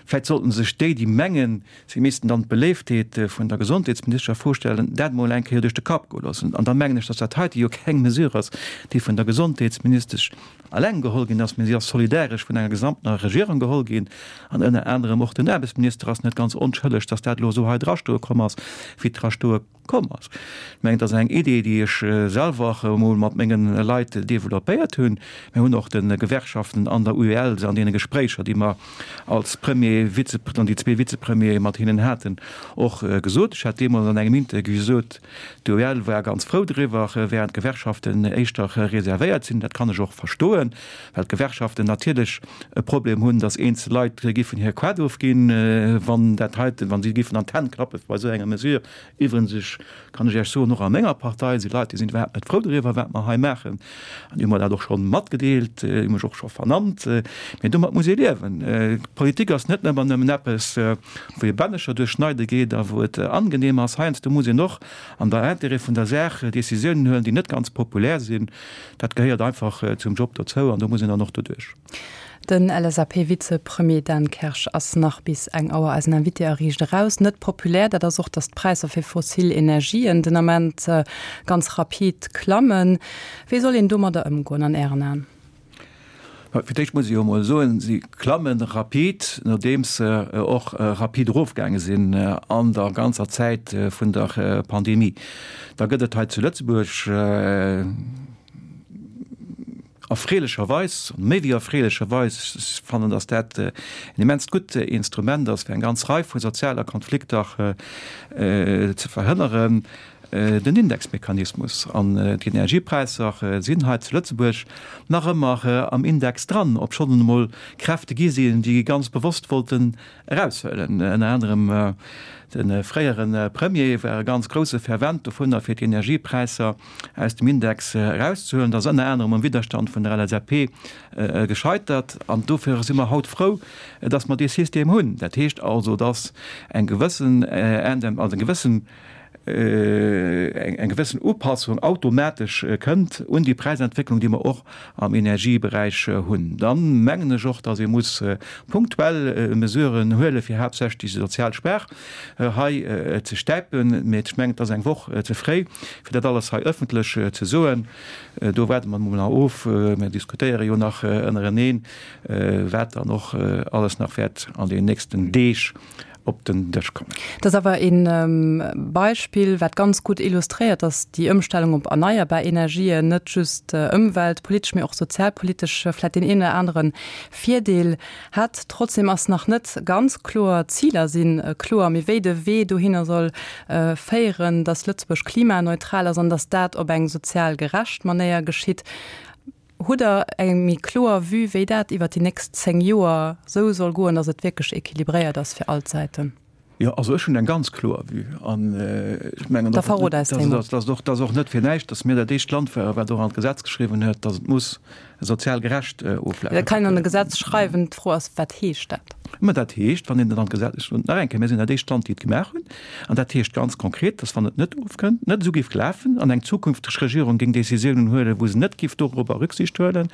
Vläicht sollten sech déi, déi mengen, si missten dann d'Beléiftheet vun der Gesondheetsministesch a Fro stellen, dat emol eng Kéier duerch de Kapp goe loossen. An da mengen ech, dass dat heite jo keng Mesure ass, déi vun der Gesondheetsministesch eleng geholl ginn ass, mä si ass solidaresch vun enger gesamtener Regierung geholl ginn. An ënner anerem och den Aarbechtsminister ass net ganz onschëlleg, dass dat elo esou hei drastoe komm ass, wéi et drastoe komm ass. Ech mengen, et ass eng Idee, déi ech selwer emol mat menge Leit developpéiert hunn. Mir hunn och de Gewerkschaften an der UEL se an deene Gespréicher, déi mer als Premier, Vize, an déi zwee Vizepremiere mat hinnen haten, och gesot. Ech hat deemools an engem Interview gesot, d'UEL war ganz frou driwwer, während d'Gewerkschaften éischter reservéiert sinn. Dat kann ech och verstoen, well d'Gewerkschaften natierlech e Problem hunn, datt eenzel Leit giffen hir Quat ofginn, wann dat heiten, wa si giffen an d'Hänn klappe bei esou enger Mesure. Iwwregens, ech kann ech Iech soen, och a menger Partei si Leit, déi sinn iwwerhaapt net frou doriwwer, wat mer hei maachen. An déi hu mer dat och scho matgedeelt, déi hu mech och scho vernannt. Mee domat muss ee liewen. D'Politik ass net ëmmer nëmmen eppes, wou ee Bännecher duerchschneide geet a wou et angenehm ass. Heiansdo muss een och an der Intérêt vun der Saach Décisiounen huelen, déi net ganz populär sinn. Dat gehéiert einfach zum Job dozou an do muss een dann och doduerch. Den LSAP-Vizepremier Dan Kersch ass nach bis eng Auer eisen Invité a Riicht Eraus. Net populär, dat ass och, datt d'Präisser fir fossil Energien den Ament ganz rapid klammen. Wéi soll een domadder ëmgoen an Ären Aen? Fir d'éischt muss ech jo emol soen, si klamme rapid, nodeems se och rapid erofgaange sinn an der ganzer Zäit vun der Pandemie. Da gëtt et hei zu Lëtzebuerg erfreelecherweis, méi wéi erfreelecherweis, ech fannen, datt dat en immenst gutt Instrument ass, fir eng ganz Rei vu sozialer Konflikter ze verhënneren, den Indexmechanismus. An d'Energiepräisser sinn hei zu Lëtzebuerg nach ëmmer am Index dran, obschonn et emol Kräfte gi sinn, déi ganz bewosst wollten eraushuelen. Ënner anerem de fréiere Premier war e ganz grousse Fervent dovunner, fir d'Energiepräisser aus dem Index erauszehuelen. Dat ass ënner anerem um Widderstand vun der LSAP gescheitert. An dofir si mer haut frou, dass mer dee System hunn. Dat heescht also, dass eng gewëssen, also eng gewëssen, eng gewëssen Upassung automatesch kënnt un déi Präisentwécklung, déi mer och am Energieberäich hunn. Dann mengen ech och, dass ee muss punktuell Mesuren huelen, fir haaptsächlech déi sozial Schwaach hei ze stäipen. Mee ech mengen, et ass eng Woch ze fréi, fir dat alles hei ëffentlech ze soen. Do waarde mer emol nach of. Mir diskutéiere jo nach ënnereneen, wat dann och alles nach wäert an den nächsten Deeg op den Dësch kommen. Dat ass awer e Beispill, wat ganz gutt illustréiert, datt déi Ëmstellung op erneierbar Energien net just ëmweltpolitesch, mee och sozialpolitesch vläicht deen een oder anere Virdeel hätt. Trotzdem ass nach net ganz kloer, d'Ziler si kloer, mee wéi de Wee dohinner soll féieren, datt Lëtzebuerg klimaneutral ass an datt dat op eng sozial gerecht Manéier geschitt, Hutt Der eng méi kloer Vue, wéi dat iwwert déi nächst 10 Joer esou soll goen, datt et wierklech équilibréiert ass fir all d'Säiten? Jo, also ech hunn eng ganz kloer Vue an ech mengen, Da verrot eis déi mol. dat ass och net fir näischt, datt mir dat éischt Land waren, wat och an d'Gesetz geschriwwen huet, datt et muss sozial gerecht oflafen. Dat kann een an e Gesetz schreiwen. D'Fro ass, Wat heescht dat? Mä dat heescht, wann een et an d'Gesetz, nach eng Kéier, mir sinn dat éischt Land, déi et gemaach hunn, an dat heescht ganz konkret, dass, wann et net ofkënnt, net esou géif lafen an eng zukünfteg Regierung géing Décisiounen huelen, wou se net géif dorobber Rücksicht huelen,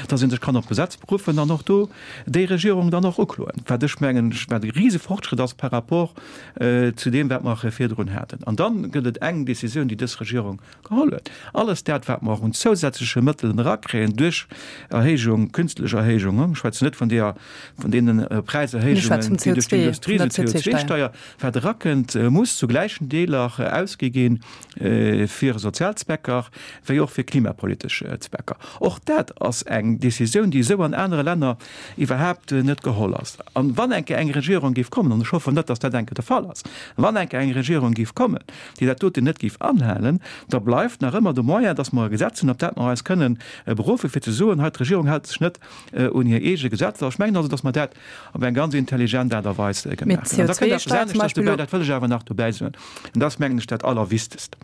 dass ee sech kann op d'Gesetz beruffen an och do déi Regierung dann och ukloen, wat ech mengen, wat e rise Fortschritt ass par rapport zu deem, wat mer virdrun haten. An da gëtt et eng Décisioun, déi dës Regierung Geholl huet. Alles dat, wat mer och un zousätzleche Mëttelen erakréien duerch Erhéijung, künstlech Erhéijung, ech schwätzen net vun deeër, vun deene Präiserhéijungen, déi duerch d'Industrie sinn, CO2-Steier, wat erakënnt, muss zu gläichen Deeler ausgi gi fir sozial Zwecker wéi och fir klimapolitesch Zwecker. Och dat ass eng Décisioun, déi esou an anere Länner iwwerhaapt net geholl ass. An wann eng Kéier eng Regierung géif kommen, an ech hoffen net, datt dat eng Kéier de Fall ass, wann eng Kéier eng Regierung géif kommen, déi dat doten net géif anhalen, da bleift nach ëmmer de Moyen, dass mer e Gesetz hunn, op dat mer eis kënnen beruffen, fir ze soen, hei d'Regierung hält sech net un hir eege Gesetzer. Ech mengen also, dass mer dat op eng ganz intelligent Aart a Weis gemaach hunn. An da kënnt eppes aneschters dobäi, dat wëll ech awer nach dobäi soen, an dat ass, mengen ech, dat Allerwichtegst.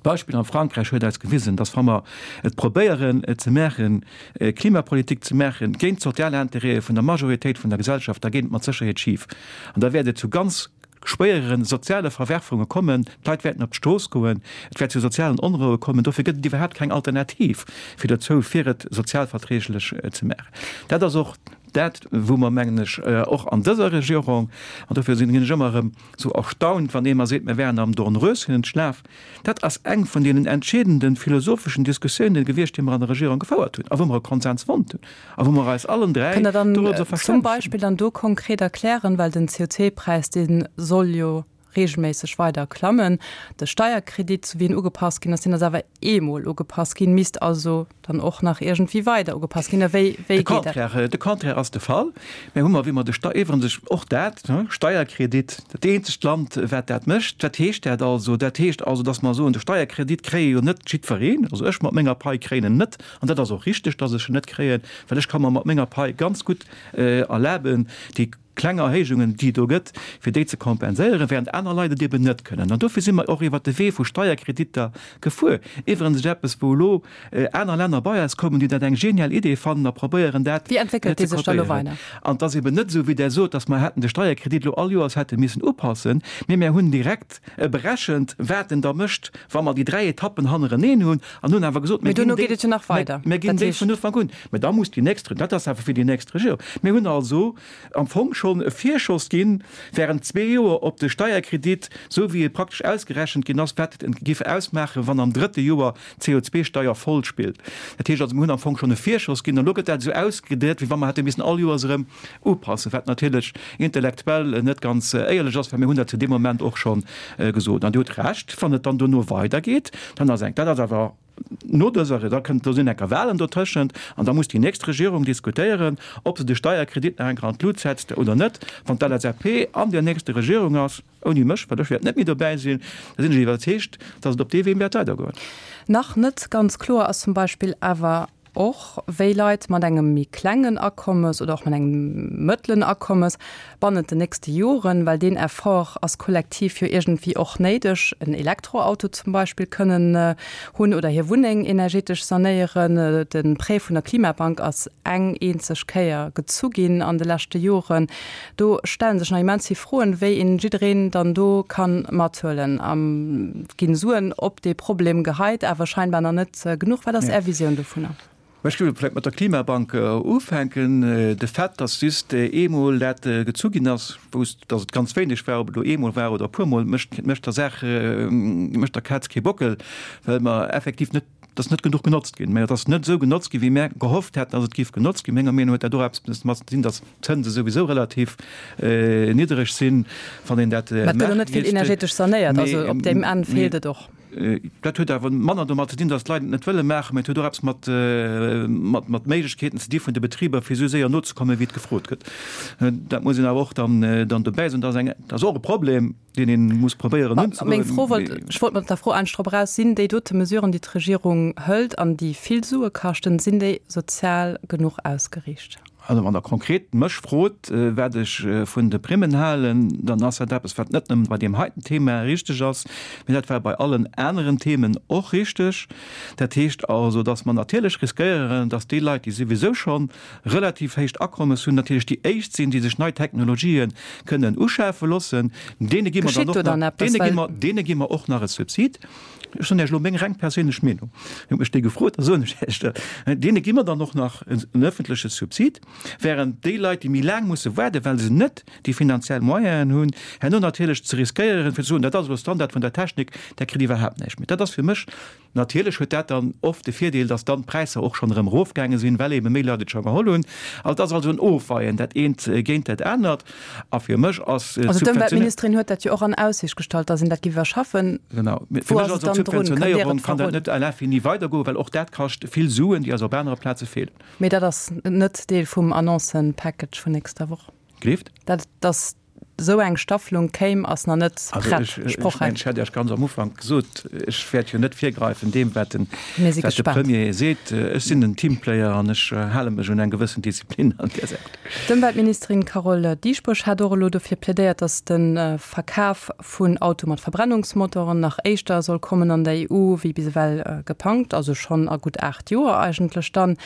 D'Beispill am Frankräich huet eis gewisen, dass wa mer et probéieren ze maachen, Klimapolitik ze maachen géint d'sozial Intérêtë vun der Majoritéit vun der Gesellschaft, da geet et mat Sécherheet schif an da wäert et zu ganz schwéiere soziale Verwerfunge kommen, d'Leit wäerten op d'Strooss goen, et wäert zu sozialen Onroue kommen. Dofir gëtt et iwwerhaapt keng Alternativ fir dozou, fir et sozialverträglech ze maachen. Dat ass och dat, wou mer, mengen ech, och an dëser Regierung, an dofir sinn ech ëmmer erëm esou erstaunt, wann ee mer seet, mir wären am Dornröschenschlaf, dat ass eng vun deenen entscheedende philosopheschen Diskussiounen gewiescht, déi mer an der Regierung gefouert hunn a wou mer e Konsens fonnt hunn a wou mer eis allen 3 Kënnt Der dann dorobber zum verstännegt hunn. Beispill dann do konkret erklären, well den CO2-Präis, dee soll jo regelméisseg weider klammen, de Steierkredit, sou wéi en ugepasst ginn ass, deen ass awer eemol ugepasst ginn, misst also dann och nach iergendwéi weider ugepasst ginn. Wéi, wéi De geet dat? Contraire, de Contraire ass de Fall. Mir hu mer, wéi mer de Stei-, iwwerens och dat, Steierkredit, dat eenzegt Land, wat dat mécht. Wat heescht dat also? Dat heescht also, datt mer soen, de Steierkredit kréie jo net jiddwereen. Also ech mat menger Pai kréien en net. An dat ass och richteg, datt ech en net kréien, well ech ka mer mat menger Pai ganz gutt erlaben, déi kleng Erhéijungen, déi et do gëtt, fir déi ze kompenséieren, während aner Leit et eben net kënnen. An dofir si mer och iwwert de Wee vu Steierkreditter gefuer. Iwwerens eppes, wou elo aner Länner bei eis kommen, déi dat eng genial Idee fannen a probéieren, dat Wéi entwéckelt déi ze sech da elo kopéieren. weider? An et ass eben net esou, wéi Der sot, dass mer hätten de Steierkredit elo all Joers hätte missen upassen, mee mir hunn direkt berechent, wat en da mécht, wa mer déi 3 Etappen hannereneen hunn, an hunn awer gesot, mir ginn déi, et jo nach weider. Mir ginn déi vun Ufank un. Mä da muss déi nächst, dat ass awer fir déi nächst Regierung. Mir hunn also am Fong schonn e Virschoss ginn, während zwee Joer op de Steierkredit, esou wéi e praktesch ausgerechent ginn ass, wat et géif ausmaachen, wann am drëtte Joer d'CO2-Steier voll spillt. Dat heescht also, mir hunn am Fong schonn e Virschoss ginn, an elo gëtt dat esou ausgedréit, wéi wa mer hätte missen all Joers erëm upassen, wat natierlech intellektuell net ganz éierlech ass, well mir hunn dat zu deem Moment och scho gesot. An Dir hutt Recht, wann et dann dono weidergeet, dann ass eng, dat ass awer no dëser, da kënnt, do sinn enker Wahlen dotëschent an da muss déi nächst Regierung diskutéieren, ob se de Steierkredit nach eng Kéier an d'Lut setzt oder net. Wann d'LSAP an där nächster Regierung ass, ouni mech, well ech wäert net méi dobäi sinn, da sinn ech iwwerzeegt, datt et op dee Wee wäert weidergoen. Nach net ganz kloer ass zum Beispill awer och, wéi Leit mat engem méi klengen Akommes oder och mat engem mëttelen Akommes bannent den nächste Joren, well deen Effort ass kollektiv jo iergendwéi och néideg, en Elektroauto zum Beispill kënnen hunn oder hir Wunneng energetesch sanéieren. De Prêt vun der Klimabank ass eng eenzeg Kéier gezu ginn an de leschte Joren. Do stelle sech nach immens vill Froen, wéi een jiddereen dann do ka mathuelen. Et ginn Suen op dee Problem geheit, awer scheinbar nach net genuch. Wat ass Är Visioun dovunner? Ech géif vläicht mat der Klimabank ufänken. De Fait, dass just eemol dat gezu ginn ass, wousst, dass et ganz wéineg war, ob et elo eemol war oder e puermol, mécht, mécht der Saach, mécht der Kaz kee Bockel, well mer effektiv net, et ass net genuch genotzt ginn. Mä et ass net esou genotzt ginn, wéi mär gehofft hätten, dass et géif genotzt ginn. Menger Meenung no huet dat och eppes domat ze dinn, dass d'Zënse souwisou relativ niddereg sinn, wann een dat Mä et gëtt och net vill energetesch sanéiert, also op deem Enn feelt et och. Dat huet awer manner domat ze dinn, datt d'Leit et net wëlle maachen, mä et huet och eppes mat, mat, mat Méiglechkeeten ze di vun de Betriber, fir esou séier nozekommen, wéi et gefrot gëtt. Dat muss een awer och dann, dann dobäi soen. Dat ass eng, dat ass och e Problem, deen ee muss probéieren unzegoen. Meng Fro wollt, ech wollt mat der Fro eigentlech drop eraus, Sinn déi dote Mesuren, déi d'Regierung hëlt an déi vill Sue kaschten, sinn déi sozial genuch ausgeriicht? Also wann Der konkret mech frot, wat ech vun de Primmen halen, dann ass dat eppes, wat net nëmmen bei deem heiten Thema richteg ass, mee dat war bei allen aneren Themen och richteg. Dat heescht also, dass mer natierlech riskéieren, dass déi Leit, déi souwisou scho relativ héicht Akommes hunn, natierlech déi éischt sinn, déi sech nei Technologië kënnen uschafe loossen. Deene gi mer dann och nach, deene gi mer, deene gi mer och nach e Subsid. Ech soen Iech elo meng reng perséinlech Meenung, Dir hutt mech déi gefrot, da soen ech Iech dat. Deene gi mer dann och nach en öffentleche Subsid, während déi Leit, déi méi laang musse waarden, well se net déi finanziell Moyenen hunn, herno natierlech ze riskéieren, fir ze soen, dat ass elo Standard vun der Technik, där kritt iwwerhaapt näischt méi. Dat ass fir mech Natierlech huet dat dann oft de Virdeel, dass dann d'Präisser och schonn erëm erofgaange sinn, well eebe méi Leit et scho geholl hunn. Also et ass also en Ofweien, dat eent géint dat anert. A fir mech ass Also d'Ëmweltministerin huet dat jo och an Aussicht gestallt, datt een dat géif iwwerschaffen. Genau. Fir mech ass et d'Subventionéierung kann dat net à l'infini weidergoen, well och dat kascht vill Suen, déi eis op anere Plaze feelen. Mee dat ass net Deel vum Annoncen-Package vun nächster Woch. Gleeft? Dat ass. esou eng Staffelung kéim, ass nach net prett, sprochräif. Ech hat Iech ganz am Ufank gesot, ech wäert jo net virgräifen deem, wat de Premier seet. Ech sinn en Teamplayer an ech hale mech un eng gewëssen Disziplin an där Säit. D'Ëmweltministerin Carole Dieschbourg hat och elo dofir plädéiert, datt de Verkaf vun Autoe mat Verbrennungsmotoren nach éischter soll kommen an der EU wéi bis ewell gepangt, also schonn a gutt 8 Joer eigentlech dann.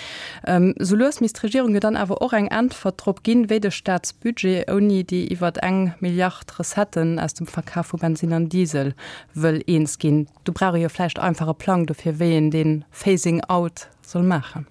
Sou lues misst d'Regierung jo dann awer och eng Äntwert drop ginn, wéi de Staatsbudget ouni déi iwwert eng Milliard Recetten aus dem Verkaf vu Bensinn an Diesel wëll eens ginn. Do brauch ee jo vläicht einfach e Plang dofir, wéi een dee Phasing out soll maachen.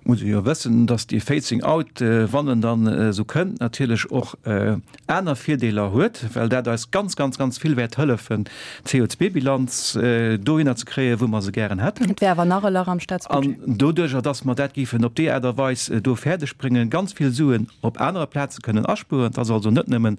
Muss ee jo wëssen, datt dee Phasing out, wann en dann esou kënnt, natierlech och aner Virdeeler huet, well dat eis ganz, ganz, ganz vill wäert hëllefen, d'CO2-Bilanz dohinner ze kréien, wou mer se gären hätten. Et wär awer nach e Lach am Staatsbudget. An doduerjer, datt mer dat géifen op déi Aart a Weis do fäerdegbréngen, ganz vill Suen op anere Plaze kënnen aspueren. Et ass also net nëmmen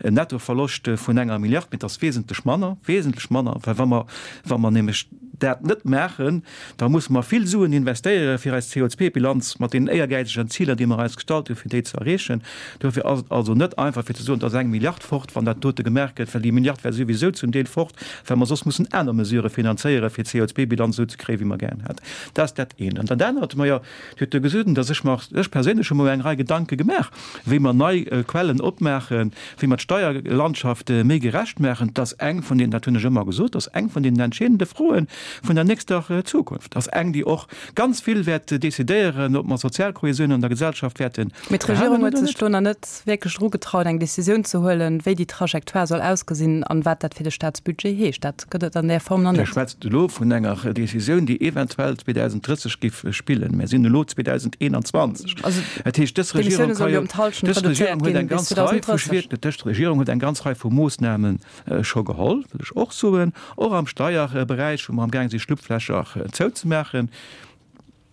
en Nettoverloscht vun enger Milliard, mee et ass wesentlech manner, wesentlech manner, well wa mer, wa mer nämlech dat net maachen, Da musse mer vill Suen investéieren, fir eis CO2-Bilanz mat deenen éiergäizegen Ziler, déi mer eis gestallt hunn, fir déi ze erreechen. Dofir ass et also net einfach, fir ze soen, et ass eng Milliard fort, wann dat dote gemaach gëtt, well déi Milliard wär souwisou zum Deel fort, well mer soss mussen aner Mesurë finanzéieren, fir d'CO2-Bilanz esou ze kréien, wéi mer gären hätten. Dat ass dat eent. An dat anert, majo, Dir hutt jo gesot, dass ech mer, ech perséinlech hu mer eng Rei Gedanke gemaach, wéi mer nei Quellen opmaachen, wéi mer d'Steierlandschaft méi gerecht maachen. Dat ass eng vun den, dat hunn ech ëmmer gesot, dat ass eng vun den entscheedende Froe vun der nächster Zukunft. Dat ass eng, déi och ganz vill wäert decidéieren, ob mer Sozialkohesioun an der Gesellschaft wäerten Mee d'Regierung huet sech do nach net wierklech erugetraut, eng Decisioun ze huelen, wéi déi Trajectoire soll ausgesinn an wat dat fir de Staatsbudget heescht. Dat gëtt et an där Form nach net. Dir schwätzt elo vun enger Decisioun, déi eventuell 2030 géif spillen. Mir sinn elo 2021. Dat heescht, dës Regierung ka jo, dës Regierung huet eng ganz Rei vu schwier, dës Regierung huet eng ganz Rei vu Moossname scho geholl, wëll ech och soen, och am Steierberäich, wou mer amgaang si Schlupflächer zouzemaachen.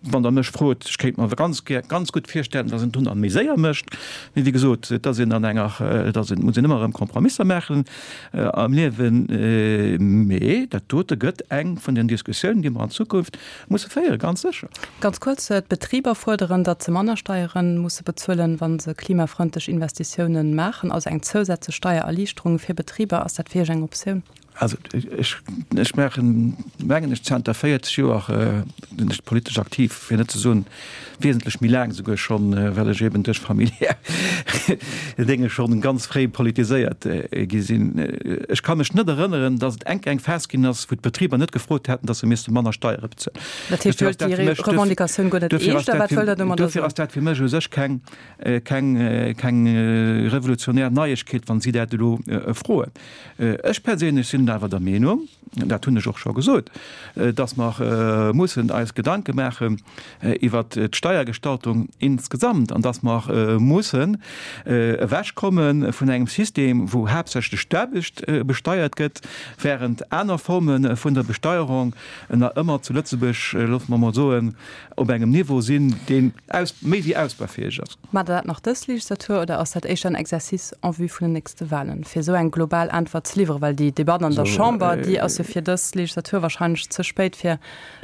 Wann Der mech frot, ech kéint mer ganz gär, ganz gutt virstellen, datt een et dunn méi séier mécht. Mee wéi gesot, et ass een an enger, et ass een, muss een ëmmer erëm Kompromisser maachen am Liewen. Mee dat dote gëtt eng vun den Diskussiounen, déi mer an Zukunft musse féieren, ganz sécher. Ganz kuerz, D'Betriber fuerderen, datt se manner Steiere musse bezuelen, wa se klimafrëndlech Investitiounen maachen, also eng zousätzlech Steiererliichterung fir Betriber. Ass dat fir Iech eng Optioun? Also ech, ech maachen, mengen ech, zanter 40 Joer sinn ech politesch aktiv, fir net ze soen wesentlech méi laang esouguer schonn, well ech eben duerch familiär Dénge schonn ganz fréi politiséiert gi sinn. Ech ka mech net erënneren, datt et enk eng Phas ginn ass, wou d'Betriber net gefrot hätten, datt se misste manner Steiere bezuelen. Dat heescht, Dir huelt déi Revendicatioun guer net eescht, oder wat wëllt Der domadder soen? Dofir ass dat fir mech u sech keng, keng, keng revolutionär Neiegkeet, wa si dat elo froen. Ech perséinlech sinn awer der Meenung, dat hunn ech och scho gesot, dass mer mussen eis Gedanke maachen iwwert d'Steiergestaltung insgesamt an dass mer mussen ewechkomme vun engem System, wou haaptsächlech d'Aarbecht besteiert gëtt, während aner Forme vun der Besteuerung nach ëmmer zu Lëtzebuerg, loosse mer emol soen, op engem Niveau sinn, deen méi wéi ausbaufäeg ass. Maacht Der dat nach dës Legislatur oder ass dat éischter en Exercice en vue vun den nächste Wahlen, fir esou eng global Äntwert ze liwweren? Well déi Debatt an der Chamber, déi ass jo fir dës Legislatur wahrscheinlech ze spéit, fir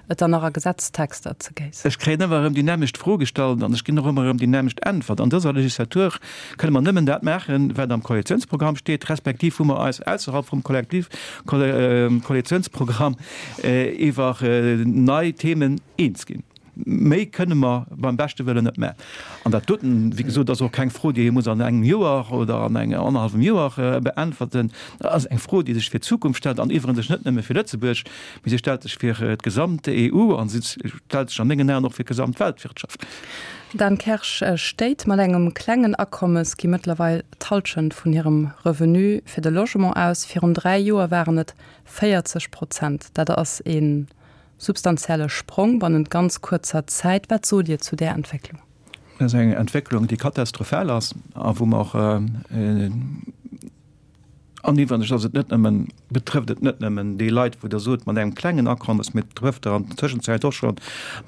et dann nach a Gesetztexter ze géissen. Ech kréien ëmmer erëm déi nämmlecht Fro gestallt an ech ginn och ëmmer erëm déi nämmlecht Äntwert. An dëser Legislatur kënne mer nëmmen dat maachen, wat am Koalitionsprogramm steet, respektiv wou mer eis ausserhalb vum Kollektiv Koalitionsprogramm iwwer nei Themen eens ginn. Méi kënne mer beim beschte Wëllen net maachen. An dat doten, wéi gesot, ass och keng Fro, déi ee muss an engem Joer oder an engem annerhallwem Joer beäntwerten. Dat ass eng Fro, déi sech fir d'Zukunft stellt an iwwerens net nëmme fir Lëtzebuerg, mee se stellt sech fir d'gesamt EU a se stellt sech a mengen Aen och fir d'gesamt Weltwirtschaft. Dan Kersch, Stéit mat engem klengen Akommes gi mëttlerweil d'Hallschent vun hirem Revenu fir de Logement aus. Virun 3 Joer waren et 40 Prozent. Dat ass ee Substantielle Sprong bannent ganz kuerzer Zäit. Wat sot Dir zu där Entwécklung? Dat ass eng Entwécklung, déi katastrophal ass a wou mer och, an iwwregens ass et net nëmmen, betrëfft et net nëmmen déi Leit, wou Der sot, mat engem klengen Akommes, mee et betrëfft der an der Tëschenzäit och scho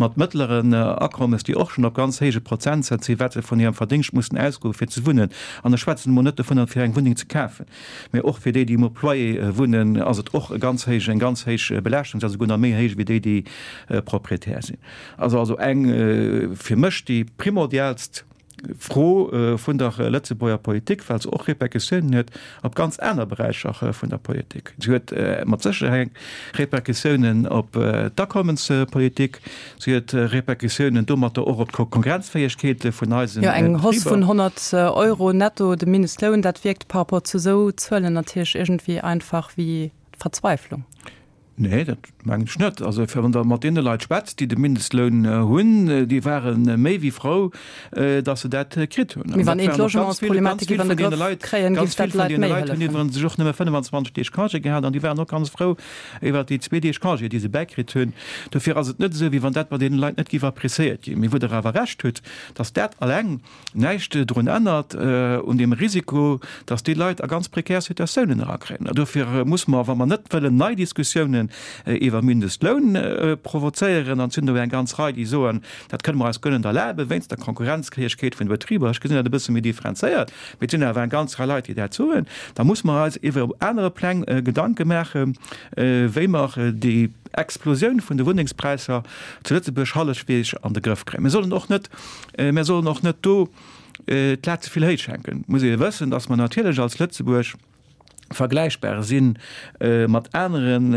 mat mëttleren Akommes, déi och schonn op ganz héije Prozentsätz sinn, wat se vun hirem Verdéngscht mussen ausgoen, fir ze wunnen. An ech schwätzen emol net dovunner, fir eng Wunneng ze kafen. Mee och fir déi, déi um Loyer wunnen, ass et och e ganz héich, eng ganz héich Belaaschtung, se ass esouguer nach méi héich wéi déi, déi Proprietär sinn. Ass also eng fir mech déi primordialst. Fro vun der Lëtzebuerger Politik, well se och Repercussiounen huet op ganz aner Beräicher vun der Politik. Se huet mat Sécherheet Repercussiounen op d'Akommenspolitik, se huet Repercussiounen domatter och op d'Konkurrenzfäegkeet vun eisen Betriber. Jo, eng Hausse vun 100 Euro netto de Mindestloun, dat wierkt par rapport zu esou Zuelen natierlech iergendwéi einfach wéi Verzweiflung. Nee, dat mengen ech net. Also wann Der mat deene Leit schwätzt, déi de Mindestloun hunn, déi ware méi wéi frou, datt se dat kritt hunn. Mee wann een d'Logementsproblematik iwwer de Grëff kréien, géif dat Leit méi hëllefen. Hunn iwwerens sech och nëmme 25 Deeg Congé gehat an déi waren och ganz frou iwwer déi zwee Deeg Congé, déi se bäikritt hunn. Dofir ass et net esou, wéi wann dat bei deene Leit net géif appréciéiert ginn. Mee wou Der awer Recht hutt, datt dat alleng näischt drun ännert un deem Risiko, dass déi Leit a ganz prekär Situatiounen erakréien. A dofir muss mer, wa mer net wëllen nei Diskussiounen iwwer Mindestloun provozéieren, an et sinn do eng ganz Rei, déi soen, dat kënne mer eis guer net erlaben, wéinst der Konkurrenzfäegkeet vun de Betriber, ech gesinn dat e bësse méi differenzéiert, mee et sinn awer eng ganz Rei Leit, déi dat soen, da muss mer eis iwwer op anere Pläng Gedanke maachen, wéi mer déi Explosioun vun de Wunnengspräisser zu Lëtzebuerg hallefweeg an de Grëff kréien. Mir sollen och net Mir sollen och net do d'Lat ze vill héich hänken. Et muss ee wëssen, datt mer natierlech als Lëtzebuerg vergläichbar si mat aneren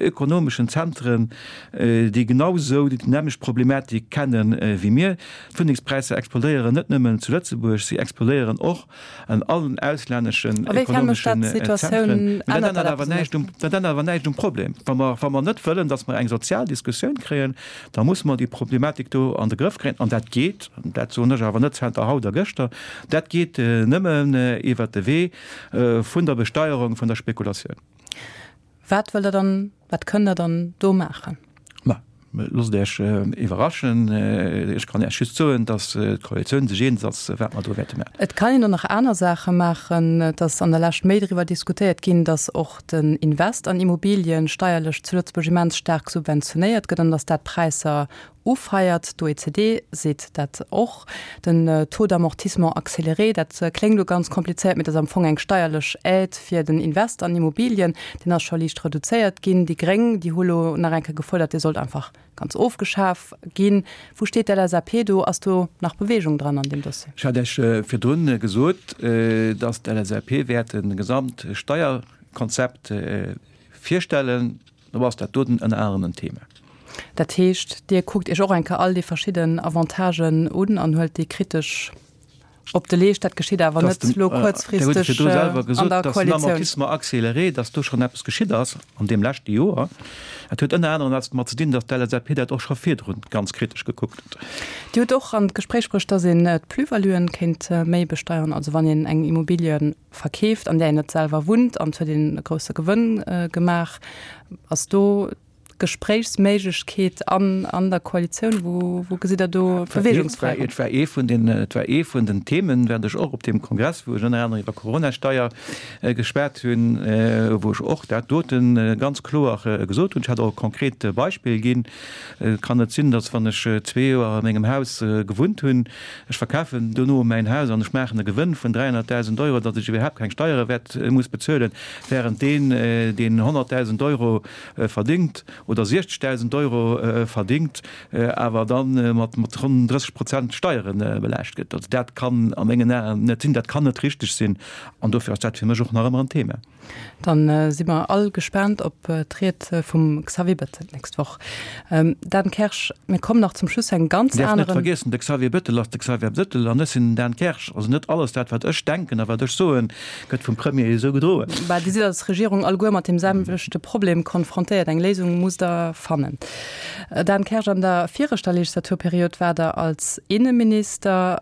ökonomeschen Zentren, déi genau esou déi nämmlecht Problematik kenne wéi mir. D'Wunnengspräisser explodéieren net nëmmen zu Lëtzebuerg, si explodéieren och an allen auslänneschen ekonomeschen Zentren. Mä dat ännert awer näischt um, dat ännert awer näischt um Problem. Wa mer, wa mer net wëllen, datt mer eng sozial Diskussioun kréien, da musse mer déi Problematik do an de Grëff kréien. An dat geet, dat soen ech awer net zanter haut a gëschter, dat geet nëmmen iwwert de Wee vun der Besteierung vun der Spekulatioun. Wat wëllt Der dann, wat kënnt Der dann do maachen? Ma loosst Iech iwwerraschen. Ech kann Iech just soen, datt d'Koalitioun sech eens ass, wat mer do wäerte maachen. Et kann een och nach aner Saache maachen. Et ass an der Lescht méi driwwer diskutéiert ginn, datt och den Invest an Immobilien steierlech zu Lëtzebuerg immens staark subventionéiert gëtt an datt dat d'Präisser ufeiert. D'OECD seet dat och. Den Taux d'amortissement accéléré, dat kléngt elo ganz komplizéiert, mee dat ass am Fong eng steierlech Aide fir den Invest an Immobilien. Deen ass scho liicht reduzéiert ginn. Déi Gréng, déi hu lo nach eng Kéier gefuerdert, dee sollt einfach ganz ofgeschaf ginn. Wou steet d'LSAP do? Ass do nach Beweegung dran an deem Dossier? Ech hat Iech virdrun gesot, dass d'LSAP wäert e Gesamtsteierkonzept virstellen. Do ass dat doten ënner anerem en Thema. Dat heescht, Dir kuckt Iech och eng Kéier all déi verschidden Avantagen un an huelt déi kritesch op de Leescht. Dat geschitt awer net elo kuerzfristeg an der Koalitioun. Den Amortissement accéléré, datt do schonn eppes geschitt ass an deem leschte Joer, dat huet ënner anerem eppes domat ze dinn, datt d'LSAP dat och scho virdrun ganz kritesch gekuckt huet. Dir hutt och an d'Gespréich bruecht, datt een d'Plus-valuen kéint méi besteieren, also wann een eng Immobilie verkeeft, an där een net selwer wunnt, an et huet een e grousse Gewënn gemaach. Ass do Gespréichsméiglechkeet an an der Koalitioun? Wou wou gesitt Der do Beweegungsfräiraum? Et war ee vun den, et war ee vun den Themen, während ech och op deem Kongress, wou ech ënner anerem iwwer Coronasteier geschwat hunn, wou ech och dat dote ganz kloer gesot hunn. Ech hat och e konkret Beispill ginn. Et kann net sinn, datt wann ech zwee Joer a mengem Haus gewunnt hunn, Ech verkafen dono mäin Haus an ech maachen e Gewënn vun 300.000 Euro, datt ech iwwerhaapt keng Steiere wäert muss bezuelen, während deen, deen 100.000 Euro verdingt oder 60.000 Euro verdingt, awer da mat ronn 30 Prozent Steiere belaascht gëtt. Also dat kann a mengen Aen net sinn, dat kann net richteg sinn an dofir ass dat fir mech och nach ëmmer en Thema. Dann si mer all gespaant op d'Ried vum Xavier Bettel d'nächst Woch. Dan Kersch, mir kommen nach zum Schluss zu engem ganz aneren. Däerf net vergiessen, de Xavier Bettel ass de Xavier Bettel an ech sinn den Dan Kersch. Also net alles dat, wat ech denken a wat ech soen, gëtt vum Premier esou gedroen. Bah, Dir sidd als Regierung alleguer mat deem selwechte Problem konfrontéiert. Eng Léisung musst Der fannen. Dan Kersch, an der viregter Legislaturperiod waart Der als Inneminister,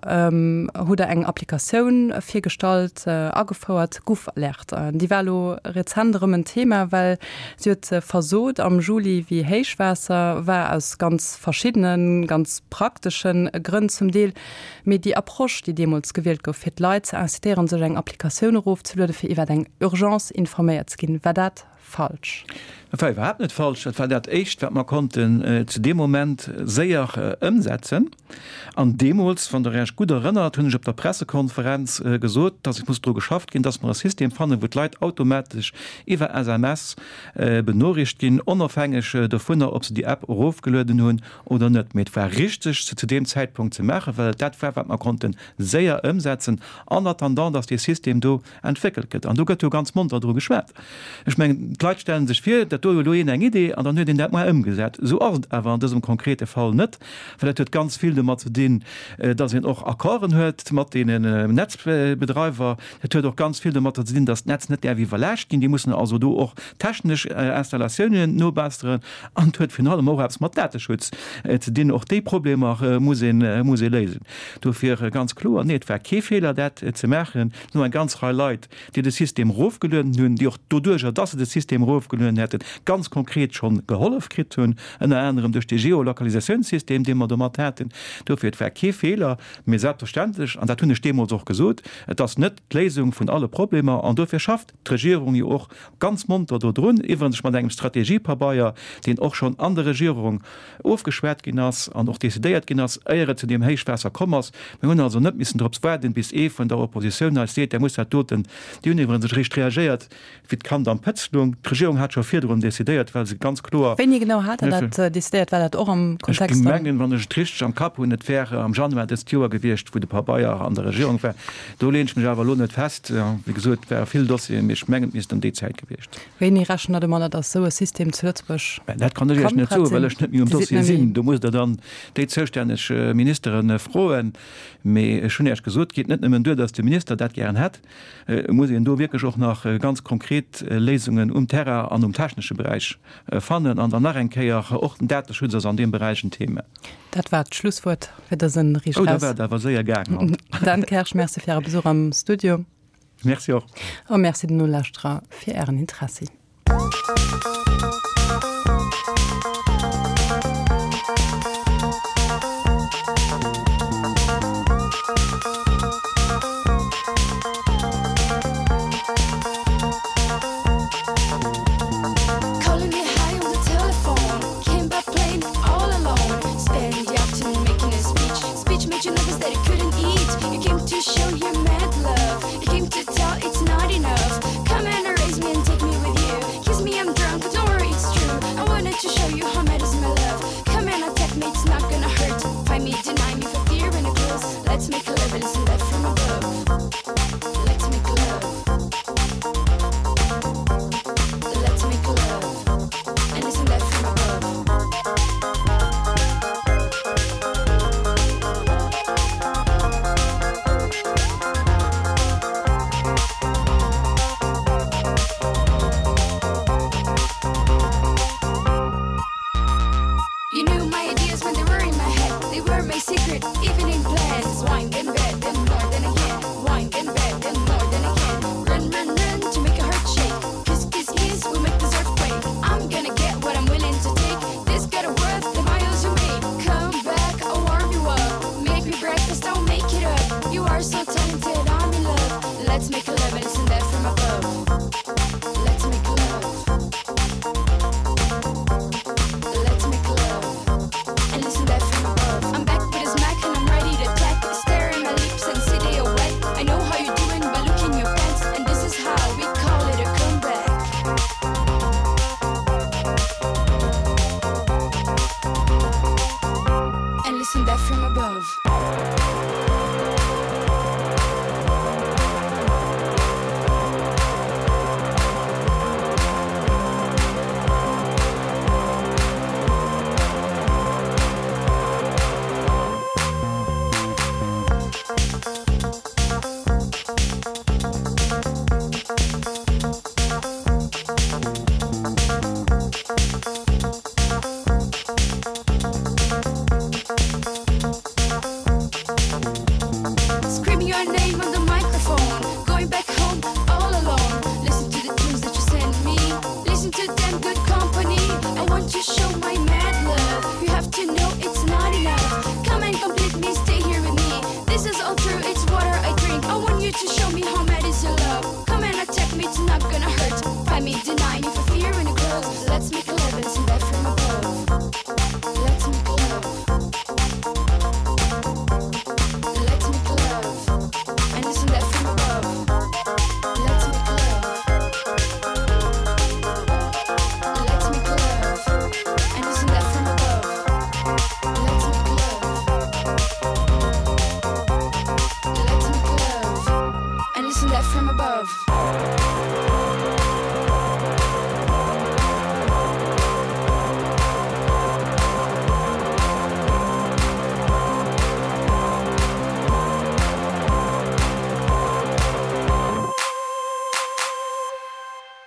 hutt Der eng Applikatioun virgestallt, agefouert, GuffAlert. Déi war elo rezent erëm en Thema, well si huet versot am Juli, wéi Héichwaasser war, aus ganz verschiddenen, ganz prakteschen Grënn zum Deel. Mee déi Approche, déi deemools gewielt gouf, fir d'Leit ze incitéieren, sech eng Applikatioun erofzelueden, fir iwwer eng Urgence informéiert ze ginn, war dat. Falsch. Dat war iwwerhaapt net falsch. Dat war dat Éischt, wat mer konnten zu deem Moment séier ëmsetzen. An deemools, wann Der Iech gutt erënnert, hunn ech op der Pressekonferenz gesot, dass et muss dru geschafft ginn, dass mer e System fannen, wou d'Leit automatesch iwwer SMS benoriicht ginn, onofhängeg dovunner, ob se déi App erofgelueden hunn oder net. Mee et war richteg, se zu deem Zäitpunkt ze maachen, well et dat war, wat mer konnte séier ëmsetzen, en attendant, dass dee System do entwéckelt gëtt. An do gëtt jo ganz monter dru geschwat. Ech mengen, d'Leit stelle sech vir, dat do huet elo een eng Idee an dann huet een dat mar ëmgesat. Esou ass et awer an dësem konkrete Fall net, well dat huet ganz vill domat ze dinn, dass een och Accorden huet mat deenen Netzbedreiwer. Dat huet och ganz vill domatter ze dinn, dass d'Netz net däerf iwwerlaascht ginn. Déi mussen also do och technesch Installatiounen nobesseren. An et huet virun allem och eppes mat Dateschutz ze dinn. Och déi Problemer muss ee muss ee léisen. Dofir ganz kloer, Nee, et war kee Feeler, dat ze maachen. Et sinn eng ganz Rei Leit, déi de System erofgelueden hunn, déi och doduerjer, dass se de System erofgelueden hätten, ganz konkret schonn gehollef kritt hunn, ënner anerem duerch dee Geolokalisatiounssystem, dee mer domat haten. Dofir, et war kee Feeler. Mee selbstverständlech, an dat hunn ech deemools och gesot, et ass net d'Léisung vun alle Problemer. An dofir schafft d'Regierung jo och ganz monter dodrun, iwwerens mat engem Strategiepabeier, deen och schonn an der Regierung ofgeschwat ginn ass an och decidéiert ginn ass, éier et zu deem Héichwaasser komm ass. Mir hunn also net missen drops waarden, bis ee vun der Oppositioun eis seet, Der musst dat doten. Déi hunn iwwerens eréischt reagéiert, wéi d'Kand am Pëtz lung. D'Regierung hat scho virdrun decidéiert, well se ganz kloer. Wéini genau hat Der dat decidéiert? War dat och am Kontext Ech mengen, wann ech et richteg am Kapp hunn, et wär am Januar dëst Joer gewiescht, wou de Pabeier an der Regierung war. Do leen ech mech awer elo net fest. Wéi gesot, et ware vill Dossieren, mee ech mengen, et misst ëm déi Zäit gewiescht sinn. Wéini rechent Der domadder, datt esou e System zu Lëtzebuerg kann prett sinn? Dat kann ech Iech net soen, well ech net méi um Dossier sinn. Do musst Der dann déi zoustänneg Ministere froen. Mee ech hunn Iech gesot, et geet net nëmmen duer, datt de Minister dat gären hätt. Et muss een do wierklech och nach ganz konkret Léisungen um Terrain an um technesche Beräich fannen. An dann nach eng Kéier, och den Dateschutz ass an deem Beräich en Thema. Dat war d'Schlusswuert fir dësen Riicht Raus. Oh, da war et awer séier gaangen haut. Dan Kersch, Merci fir Äre Besuch am Studio. Merci och. A Merci den Nolauschterer fir Ären Interessi.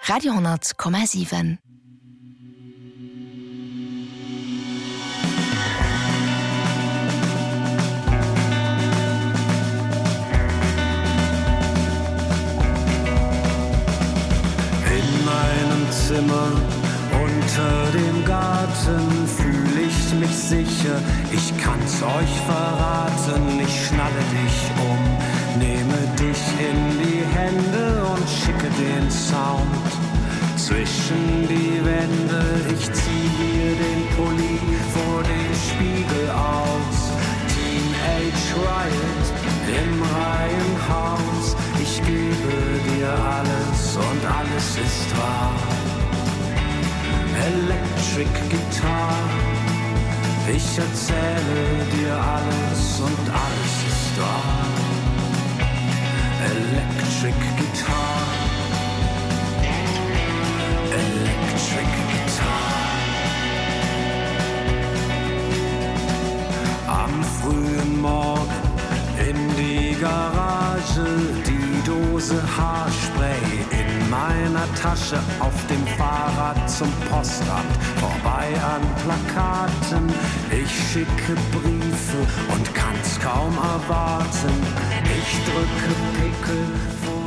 Radio 10,7. In meinem Zimmer unter dem Garten fühle ich mich sicher, ich kann's euch verraten, ich schnalle dich um, nehme dich in die Hände und schicke den Sound zwischen die Wände. Ich zieh mir den Pulli vor dem Spiegel aus. Teenage Riot im Reihenhaus. Ich gebe dir alles und alles ist wahr. Electric Guitar. Ich erzähle dir alles und alles ist wahr. Electric Guitar. Electric Guitar. Am frühen Morgen in die Garage, die Dose Haarspray in meiner Tasche auf dem Fahrrad zum Postamt, vorbei an Plakaten. Ich schicke Briefe und kann's kaum erwarten. Ich drücke Pickel vor.